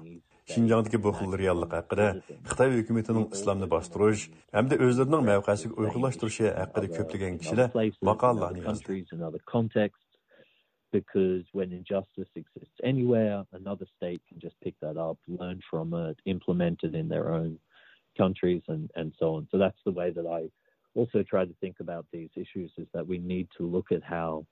شىنجاڭدىكى بۇ خىل رېئاللىق ھەققىدە خىتاي ھۆكۈمىتىنىڭ ئىسلامنى باستۇرۇش ھەمدە ئۆزلىرىنىڭ مەۋقەسىگە ئۇيغۇنلاشتۇرۇشى ھەققىدە كۆپلىگەن كىشىلەر ماقالىلەرنى يازدى. Because when injustice exists anywhere, another state can just pick that up, learn from it, implement it in their own countries, and, and so on. So that's the way that I also try to think about these issues, is that we need to look at how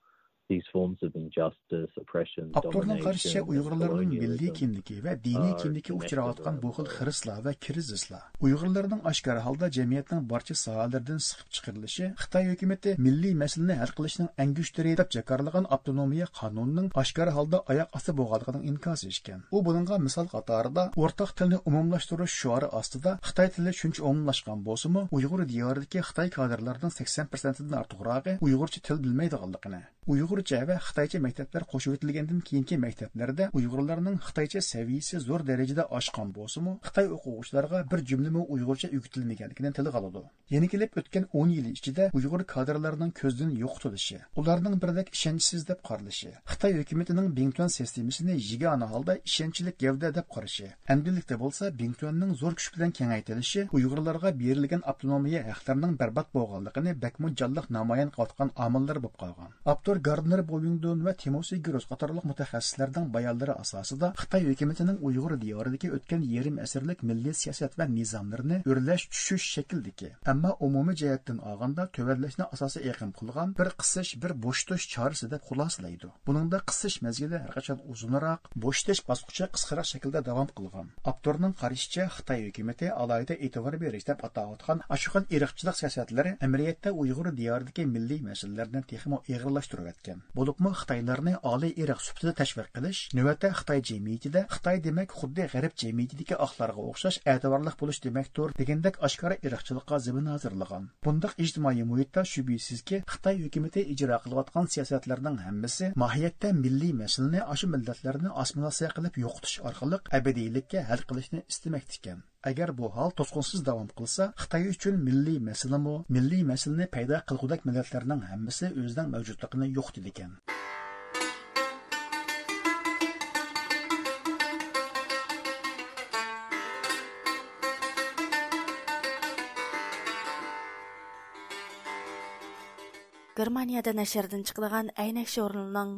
these forms of injustice, oppression, ئاپتورنىڭ قارىشىچە، ئۇيغۇرلارنىڭ مىللىي كىملىكى ۋە دىنىي كىملىكى ئۇچراۋاتقان بۇ خىل خىرىسلار ۋە كىرىزىسلار، ئۇيغۇرلارنىڭ ئاشكارا ھالدا جەمئىيەتنىڭ بارچە ساھەلىرىدىن سىقىپ چىقىرىلىشى خىتاي ھۆكۈمىتى مىللىي مەسىلىنى ھەل قىلىشنىڭ ئەڭگۈشتىرى دەپ جاكارلىغان ئاپتونومىيە قانۇنىنىڭ ئاشكارا ھالدا ئاياق ئاستى بولغانلىقىنىڭ ئىنكاسى ئىكەن. ئۇ بۇنىڭغا مىسال قاتارىدا، ئورتاق تىلنى ئومۇملاشتۇرۇش شوئارى ئاستىدا خىتاي تىلى شۇنچە ئومۇملاشقان بولسىمۇ، ئۇيغۇر دىيارىدىكى خىتاي كادىرلىرىنىڭ سەكسەن پىرسەنتىدىن ئارتۇقراقى ئۇيغۇرچە تىل بىلمەيدىغانلىقىنى، ئۇيغۇرچە ۋە خىتايچە مەكتەپلەر قوشۇۋېتىلگەندىن كېيىنكى مەكتەپلەردە ئۇيغۇرلارنىڭ خىتايچە سەۋىيىسى زور دەرىجىدە ئاشقان بولسىمۇ، خىتاي ئوقۇغۇچىلارغا بىر جۈملىمۇ ئۇيغۇرچە ئۆگىتىلمىگەنلىكىنى تىلغا ئالىدۇ. يەنە كېلىپ ئۆتكەن ئون يىل ئىچىدە ئۇيغۇر كادىرلارنىڭ كۆزدىن يوقىتىلىشى، ئۇلارنىڭ بىردەك ئىشەنچسىز دەپ قارىلىشى، خىتاي ھۆكۈمىتىنىڭ بىڭتۈەن سىستېمىسىنى يېگانە ھالدا ئىشەنچلىك گەۋدە دەپ قارىشى، ئەمدىلىكتە بولسا بىڭتۈەننىڭ زور كۈچ بىلەن كېڭەيتىلىشى ئۇيغۇرلارغا بېرىلگەن ئاپتونومىيە ھەقلىرىنىڭ بەربات بولغانلىقىنى بەكمۇ جانلىق نامايان قىلىۋاتقان ئامىللىرى بولۇپ قالغان. ئاپتور گاردنېر بويىڭدون ۋە تىموسى گروس قاتارلىق مۇتەخەسسىسلەرنىڭ بايانلىرى ئاساسىدا، خىتاي ھۆكۈمىتىنىڭ ئۇيغۇر دىيارىدىكى ئۆتكەن يېرىم ئەسىرلىك مىللىي سىياسەت ۋە نىزاملىرىنى ئۆرلەش چۈشۈش شەكلىدىكى، ئەمما ئومۇمىي جەھەتتىن ئالغاندا تۆۋەنلەشنى ئاساسىي ئېقىم قىلغان بىر قىسىش، بىر بوشىتىش چارىسى دەپ خۇلاسىلەيدۇ. بۇنىڭدا قىسىش مەزگىلى ھەرقاچان ئۇزۇنراق، بوشىتىش باسقۇچى قىسقىراق شەكىلدە داۋام قىلغان. ئاپتورنىڭ قارىشىچە، خىتاي ھۆكۈمىتى ئالاھىدە ئېتىبار بېرىش دەپ ئاتاۋاتقان ئاشۇ خىل ئىرقچىلىق سىياسەتلىرى ئەمەلىيەتتە ئۇيغۇر دىيارىدىكى مىللىي مەسىلىلەرنى تېخىمۇ ئېغىرلاشتۇرۇۋەتكەن. بولۇپمۇ خىتايلارنى ئالىي ئىرق سۈپىتىدە تەشۋىق قىلىش، نۆۋەتتە خىتاي جەمئىيىتىدە خىتاي دېمەك خۇددى غەرب جەمئىيىتىدىكى ئاقلارغا ئوخشاش ئەتىۋارلىق بولۇش دېمەكتۇر دېگەندەك ئاشكارا ئىرقچىلىققا زېمىن ھازىرلىغان. بۇنداق ئىجتىمائىي مۇھىتتا شۈبھىسىزكى، خىتاي ھۆكۈمىتى ئىجرا قىلىۋاتقان سىياسەتلەرنىڭ ھەممىسى ماھىيەتتە مىللىي مەسىلىنى ئاشۇ مىللەتلەرنى ئاسسىمىلياتسىيە قىلىپ يوقىتىش ئارقىلىق ئەبەدىيلىككە ھەل قىلىشنى ئىستىمەكتىكەن. ئەگەر بۇ ھال توسقۇنسىز داۋام قىلسا، خىتاي ئۈچۈن مىللىي مەسىلىمۇ، مىللىي مەسىلىنى پەيدا قىلغۇدەك مىللەتلەرنىڭ ھەممىسى ئۆزىنىڭ مەۋجۇتلۇقىنى يوقىتىدىكەن. گېرمانىيەدە نەشردىن چىقىدىغان ئەينەك ژۇرنىلىنىڭ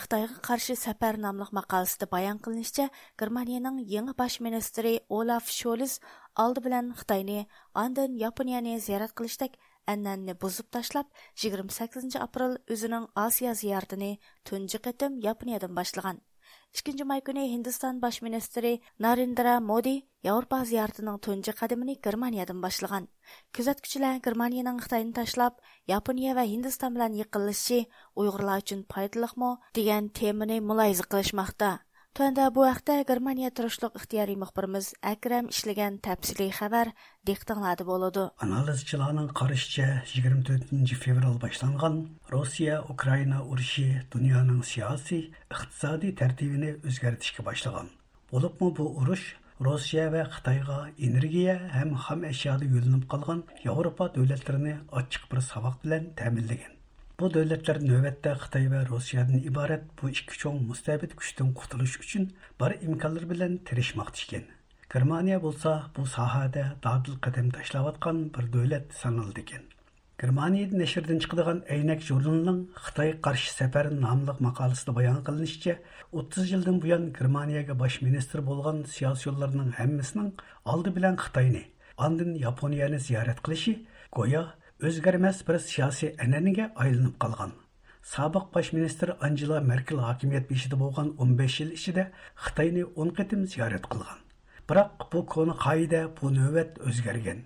خىتايغا قارشى سەپەر ناملىق ماقالىسىدە بايان قىلىنىشىچە، گېرمانىيەنىڭ يېڭى باش مىنىستىرى ئولاف شولز ئالدى بىلەن خىتاينى، ئاندىن ياپونىيەنى زىيارەت قىلىشتەك ئەنئەنىنى بۇزۇپ تاشلاپ، يىگىرمە سەككىزىنچى ئاپرېل ئۆزىنىڭ ئاسىيا زىيارىتىنى تۇنجى قېتىم ياپونىيەدىن باشلىغان. ئىككىنچى ماي كۈنى ھىندىستان باش مىنىستىرى نارېندرا مودى ياۋروپا زىيارىتىنىڭ تۇنجى قەدىمىنى گېرمانىيەدىن باشلىغان. كۆزەتكۈچىلەر گېرمانىيەنىڭ خىتاينى تاشلاپ، ياپونىيە ۋە ھىندىستان بىلەن يېقىنلىشىشى ئۇيغۇرلار ئۈچۈن پايدىلىقمۇ؟ دېگەن تېمىنى مۇلاھىزە قىلىشماقتا. تۆۋەندە بۇ ھەقتە گېرمانىيە تۇرۇشلۇق ئىختىيارىي مۇخبىرىمىز ئەكرەم ئىشلىگەن تەپسىلىي خەۋەر دىققىتىڭلاردا بولىدۇ. ئانالىزچىلارنىڭ قارىشىچە، يىگىرمە تۆتىنچى فېۋرال باشلانغان روسىيە-ئۇكرائىنا ئۇرۇشى دۇنيانىڭ سىياسىي، ئىقتىسادىي تەرتىپىنى ئۆزگەرتىشكە باشلىغان. بولۇپمۇ بۇ ئۇرۇش روسىيە ۋە خىتايغا ئېنېرگىيە ھەم خام ئەشيادا يۆلىنىپ قالغان ياۋروپا دۆلەتلىرىنى ئاچچىق بىر ساۋاق بىلەن تەمىنلىگەن. بۇ دۆلەتلەر نۆۋەتتە خىتاي ۋە روسىيەدىن ئىبارەت بۇ ئىككى چوڭ مۇستەبىت كۈچتىن قۇتۇلۇش ئۈچۈن بار ئىمكانلىرى بىلەن تىرىشماقتا ئىكەن. گېرمانىيە بولسا بۇ ساھەدە دادىل قەدەم تاشلاۋاتقان بىر دۆلەت سانىلىدىكەن. گېرمانىيە نەشرىدىن چىقىدىغان ئەينەك ژۇرنىلىنىڭ خىتايغا قارشى سەپەر ناملىق ماقالىسىدە بايان قىلىنىشىچە، ئوتتۇز يىلدىن بۇيان گېرمانىيەگە باش مىنىستىر بولغان سىياسىيونلارنىڭ ھەممىسىنىڭ ئالدى بىلەن خىتاينى، ئاندىن ياپونىيەنى زىيارەت قىلىشى گويا ئۆزگەرمەس بىر سىياسىي ئەنئەنىگە ئايلىنىپ قالغان. سابىق باش مىنىستىر ئانجېلا مېركېل ھاكىمىيەت بېشىدا بولغان ئون بەش يىل ئىچىدە خىتاينى ئون قېتىم زىيارەت قىلغان. بىراق بۇ كونا قائىدە بۇ نۆۋەت ئۆزگەرگەن.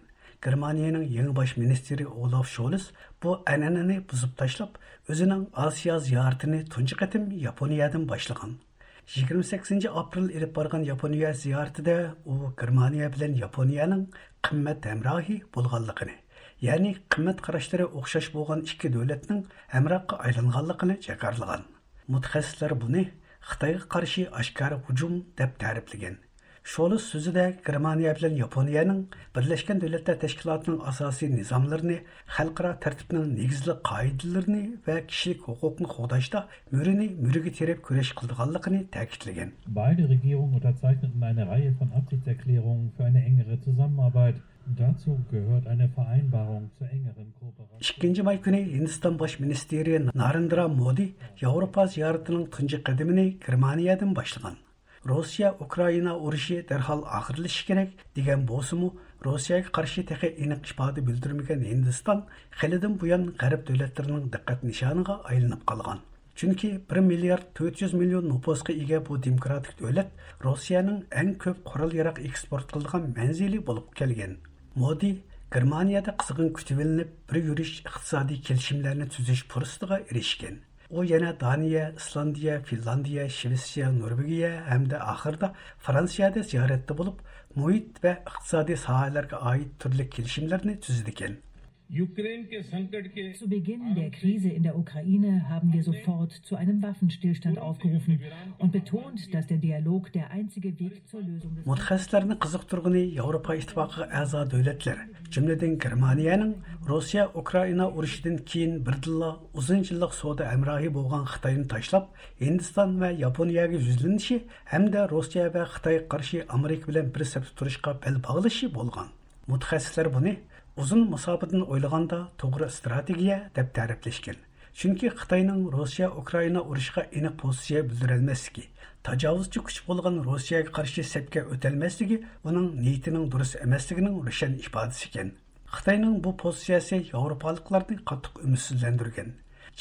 گېرمانىيەنىڭ يېڭى باش مىنىستىرى ئولاف شولز بۇ ئەنئەنىنى بۇزۇپ تاشلاپ، ئۆزىنىڭ ئاسىيا زىيارىتىنى تۇنجى قېتىم ياپونىيەدىن باشلىغان. يىگىرمە سەككىزىنچى ئاپرېل ئېلىپ بارغان ياپونىيە زىيارىتىدە ئۇ گېرمانىيە بىلەن ياپونىيەنىڭ قىممەت ھەمراھى بولغانلىقىنى، يەنى قىممەت قاراشلىرى ئوخشاش بولغان ئىككى دۆلەتنىڭ ھەمراھقا ئايلانغانلىقىنى جاكارلىغان. مۇتەخەسسىسلەر بۇنى خىتايغا قارشى ئاشكارا ھۇجۇم دەپ تەرىپلىگەن. شولس سۆزىدە گېرمانىيە بىلەن ياپونىيەنىڭ بىرلەشكەن دۆلەتلەر تەشكىلاتىنىڭ ئاساسىي نىزاملىرىنى، خەلقئارا تەرتىپنىڭ نېگىزلىك قائىدىلىرىنى ۋە كىشىلىك ھوقۇقنى قوغداشتا مۈرىنى مۈرىگە تىرەپ كۈرەش قىلىدىغانلىقىنى تەكىتلىگەن. Beide Regierungen unterzeichneten eine Reihe von Absichtserklärungen für eine engere Zusammenarbeit. Dazu gehört eine Vereinbarung zur engeren Kooperation. ئىككىنچى ماي كۈنى ھىندىستان باش مىنىستىرى نارېندرا مودى ياۋروپا زىيارىتىنىڭ تۇنجى قەدىمىنى گېرمانىيەدىن باشلىغان. روسىيە ئۇكرائىنا ئۇرۇشى دەرھال ئاخىرلىشىشى كېرەك دېگەن بولسىمۇ، روسىيەگە قارشى تېخى ئېنىق ئىپادە بىلدۈرمىگەن ھىندىستان خېلىدىن بۇيان غەرب دۆلەتلىرىنىڭ دىققەت نىشانىغا ئايلىنىپ قالغان. چۈنكى بىر مىليارد تۆت يۈز مىليون نوپۇسقا ئىگە بۇ دېموكراتىك دۆلەت روسىيەنىڭ ئەڭ كۆپ قورال-ياراغ ئېكسپورت قىلىدىغان مەنزىلى بولۇپ كەلگەن. مودى گېرمانىيەدە قىزغىن كۈتۈۋېلىنىپ، بىر يۈرۈش ئىقتىسادىي كېلىشىملەرنى تۈزۈش پۇرسىتىغا ئېرىشكەن. ئۇ يەنە دانىيە، ئىسلاندىيە، فىنلاندىيە، شىۋېتسىيە، نورۋېگىيە ھەمدە ئاخىرىدا فرانسىيەدە زىيارەتتە بولۇپ، مۇھىت ۋە ئىقتىسادىي ساھەلەرگە ئائىت تۈرلۈك كېلىشىملەرنى تۈزىدىكەن. Zu Beginn der Krise in der Ukraine haben wir sofort zu einem Waffenstillstand aufgerufen und betont, dass der Dialog der einzige Weg zur Lösung des مۇتەخەسسىسلەرنى قىزىقتۇرغىنى ياۋروپا ئىتتىپاقىغا ئەزا دۆلەتلەر، جۈملىدىن گېرمانىيەنىڭ روسىيە ئۇكرائىنا ئۇرۇشىدىن كېيىن بىردىنلا ئۇزۇن يىللىق سودا ھەمراھى بولغان خىتاينى تاشلاپ، ھىندىستان ۋە ياپونىيەگە يۈزلىنىشى ھەمدە روسىيە ۋە خىتايغا قارشى ئامېرىكا بىلەن بىر سەپتە تۇرۇشقا بەل باغلىشى بولغان. مۇتەخەسسىسلەر بۇنى ئۇزۇن مۇساپىدىن ئويلىغاندا توغرا ئىستراتېگىيە دەپ تەرىپلەشكەن. چۈنكى خىتاينىڭ روسىيە ئۇكرائىنا ئۇرۇشىغا ئېنىق پوزىتسىيە بىلدۈرەلمەسلىكى، تاجاۋۇزچى كۈچ بولغان روسىيەگە قارشى سەپكە ئۆتەلمەسلىكى ئۇنىڭ نىيىتىنىڭ دۇرۇس ئەمەسلىكىنىڭ روشەن ئىپادىسى ئىكەن. خىتاينىڭ بۇ پوزىتسىيەسى ياۋروپالىقلارنى قاتتىق ئۈمىدسىزلەندۈرگەن.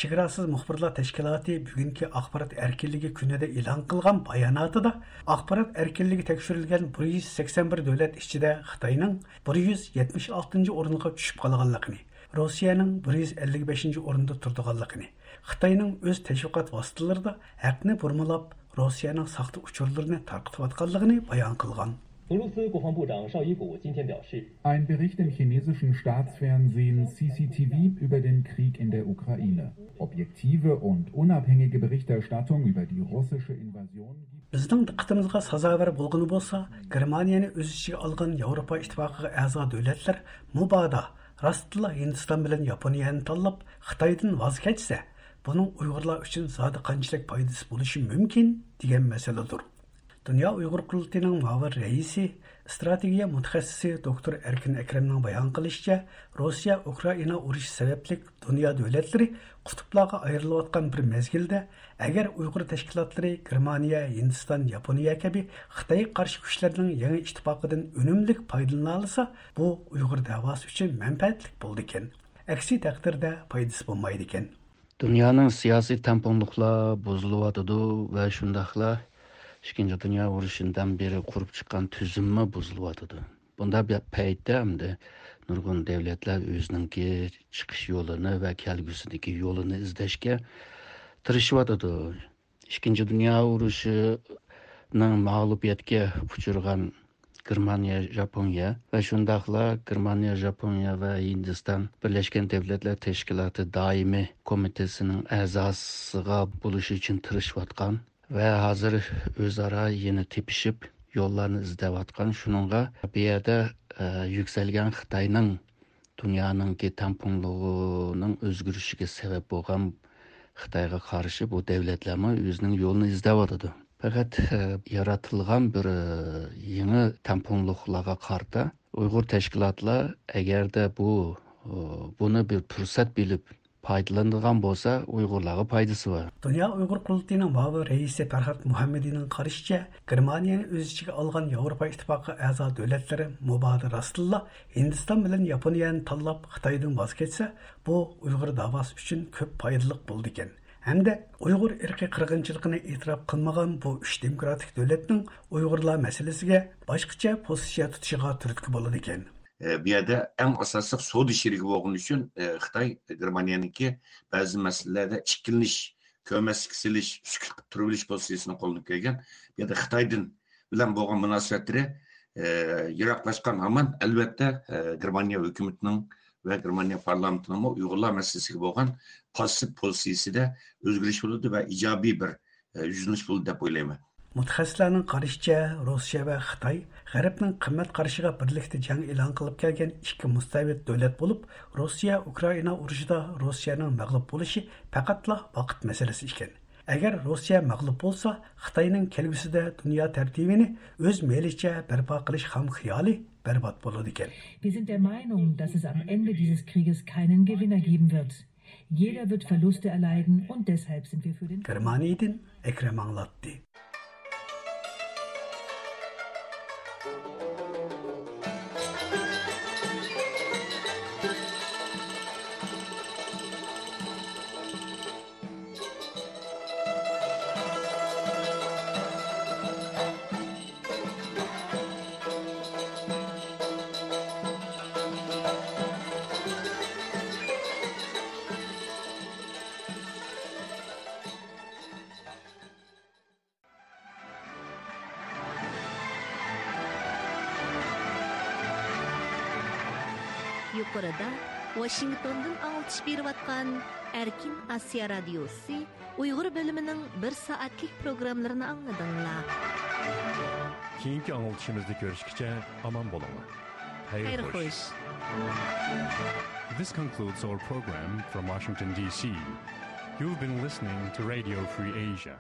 چېگراسىز مۇخبىرلار تەشكىلاتى بۈگۈنكى ئاخبارات ئەركىنلىكى كۈنىدە ئېلان قىلغان باياناتىدا، ئاخبارات ئەركىنلىكى تەكشۈرۈلگەن بىر يۈز سەكسەن بىر دۆلەت ئىچىدە خىتاينىڭ بىر يۈز يەتمىش ئالتىنچى ئورۇنغا چۈشۈپ قالغانلىقىنى، روسىيەنىڭ بىر يۈز ئەللىك بەشىنچى ئورۇندا تۇرىدىغانلىقىنى، خىتاينىڭ ئۆز تەشۋىقات ۋاسىتىلىرىدا ھەقنى بۇرمىلاپ، روسىيەنىڭ ساختا ئۇچۇرلىرىنى تارقىتىۋاتقانلىقىنى بايان قىلغان. 俄罗斯国防部长绍伊古今天表示， Ein Bericht im chinesischen Staatsfernsehen C C T V über den Krieg in der Ukraine. Objektive und unabhängige Berichterstattung über die russische Invasion gibt بىزنىڭ دىققىتىمىزغا سازاۋەر بولغىنى بولسا، گېرمانىيەنى ئۆز ئىچىگە ئالغان ياۋروپا ئىتتىپاقىغا ئەزا دۆلەتلەر مۇبادا راستلا ھىندىستان بىلەن ياپونىيەنى تاللاپ، خىتايدىن ۋاز كەچسە، بۇنىڭ ئۇيغۇرلار ئۈچۈن زادى قانچىلىك پايدىسى بولۇشى مۇمكىن، دېگەن مەسىلىدۇر. دۇنيا ئۇيغۇر قۇرۇلتىيىنىڭ مۇئاۋىن رەئىسى، ئىستراتېگىيە مۇتەخەسسىسى دوكتور ئەركىن ئەكرەمنىڭ بايان قىلىشىچە، روسىيە ئۇكرائىنا ئۇرۇشى سەۋەبلىك دۇنيا دۆلەتلىرى قۇتۇپلارغا ئايرىلىۋاتقان بىر مەزگىلدە، ئەگەر ئۇيغۇر تەشكىلاتلىرى گېرمانىيە، ھىندىستان، ياپونىيە كەبى خىتايغا قارشى كۈچلەرنىڭ يېڭى ئىتتىپاقىدىن ئۈنۈملۈك پايدىلىنالىسا، بۇ ئۇيغۇر دەۋاسى ئۈچۈن مەنپەئەتلىك بولىدىكەن. ئەكسى تەقدىردە پايدىسى بولمايدىكەن. دۇنيانىڭ سىياسىي تەڭپۇڭلۇقلار بۇزۇلۇۋاتىدۇ ۋە شۇنداقلا ئىككىنچى دۇنيا ئۇرۇشىدىن بېرى قۇرۇپ چىققان تۈزۈممۇ بۇزۇلۇۋاتىدۇ. بۇنداق بىر پەيتتە ئەمدى نۇرغۇن دۆلەتلەر ئۆزىنىڭكى چىقىش يولىنى ۋە كەلگۈسىدىكى يولىنى ئىزدەشكە تىرىشىۋاتىدۇ. ئىككىنچى دۇنيا ئۇرۇشىنىڭ مەغلۇبىيەتكە ئۇچرىغان گېرمانىيە، ژاپونىيە ۋە شۇنداقلا گېرمانىيە، ژاپونىيە ۋە ھىندىستان بىرلەشكەن دۆلەتلەر تەشكىلاتى دائىمىي كومىتېتىنىڭ ئەزاسىغا بولۇش ئۈچۈن تىرىشىۋاتقان ۋە ھازىر ئۆزئارا يەنە تېپىشىپ، يوللارنى ئىزدەۋاتقان. شۇنىڭغا بۇ يەردە، ئە، يۈكسەلگەن خىتاينىڭ دۇنيانىڭكى تەڭپۇڭلۇقىنىڭ ئۆزگىرىشىگە سەۋەب بولغان خىتايغا قارشى بۇ دۆلەتلەرمۇ ئۆزىنىڭ يولىنى ئىزدەۋاتىدۇ. پەقەت، ئە، يارىتىلغان بىر، ئە، يېڭى تەڭپۇڭلۇقلارغا قارىتا ئۇيغۇر تەشكىلاتلار ئەگەردە بۇ، ئە، بۇنى بىر پۇرسەت بىلىپ پايدىلىنىدىغان بولسا، ئۇيغۇرلارغا پايدىسى بار. دۇنيا ئۇيغۇر قۇرۇلتىيىنىڭ مۇئاۋىن رەئىسى پەرھات مۇھەممىدىنىڭ قارىشىچە، گېرمانىيەنى ئۆز ئىچىگە ئالغان ياۋروپا ئىتتىپاقى ئەزا دۆلەتلىرى مۇبادا راستتىنلا ھىندىستان بىلەن ياپونىيەنى تاللاپ، خىتايدىن ۋاز كەچسە، بۇ ئۇيغۇر داۋاسى ئۈچۈن كۆپ پايدىلىق بولىدىكەن. ھەمدە ئۇيغۇر ئىرقىي قىرغىنچىلىقىنى ئېتىراپ قىلمىغان بۇ ئۈچ دېموكراتىك دۆلەتنىڭ ئۇيغۇرلار مەسىلىسىگە باشقىچە پوزىتسىيە تۇتۇشىغا تۈرتكە بولىدىكەن. ئە، بۇ يەردە ئەڭ ئاساسلىق سودا شېرىكى بولغىنى ئۈچۈن، ئە، خىتاي گېرمانىيەنىڭكى بەزى مەسىلىلەردە ئىككىلىنىش، كۆرمەسلىككە سېلىش، سۈكۈت قىلىپ تۇرۇۋېلىش پوزىتسىيىسىنى قوللىنىپ كەلگەن. بۇ يەردە خىتايدىن بىلەن بولغان مۇناسىۋەتلىرى، ئە، يىراقلاشقان ھامان، ئەلۋەتتە، ئە، گېرمانىيە ھۆكۈمىتىنىڭ ۋە گېرمانىيە پارلامېنتىنىڭمۇ ئۇيغۇرلار مەسىلىسىگە بولغان پاسسىپ پوزىتسىيىسىدە ئۆزگىرىش بولىدۇ ۋە ئىجابىي بىر، ئە، يۈزلىنىش بولىدۇ دەپ ئويلايمەن. مۇتەخەسسىسلەرنىڭ قارىشىچە، روسىيە ۋە خىتاي غەربنىڭ قىممەت قارىشىغا بىرلىكتە جەڭ ئېلان قىلىپ كەلگەن ئىككى مۇستەبىت دۆلەت بولۇپ، روسىيە ئۇكرائىنا ئۇرۇشىدا روسىيەنىڭ مەغلۇپ بولۇشى پەقەتلا ۋاقىت مەسىلىسى ئىكەن. ئەگەر روسىيە مەغلۇپ بولسا، خىتاينىڭ كەلگۈسىدە دۇنيا تەرتىپىنى ئۆز مەيلىچە بەرپا قىلىش خام خىيالى بەربات بولىدىكەن. Wir sind der Meinung, dass es am Ende dieses Krieges keinen Gewinner geben wird. Jeder wird Verluste erleiden und deshalb sind wir für den گېرمانىيىدىن ئەكرەم ئاڭلاتتى. يۇقىرىدا ۋاشىنگتوندىن ئاڭلىتىش بېرىۋاتقان ئەركىن ئاسىيا رادىيوسى ئۇيغۇر بۆلۈمىنىڭ بىر سائەتلىك پروگراممىلىرىنى ئاڭلىدىڭلار. كېيىنكى ئاڭلىتىشىمىزدا كۆرۈشكىچە ئامان بولۇڭلار. خەير خوش. This concludes our program from Washington, D C. You've been listening to Radio Free Asia.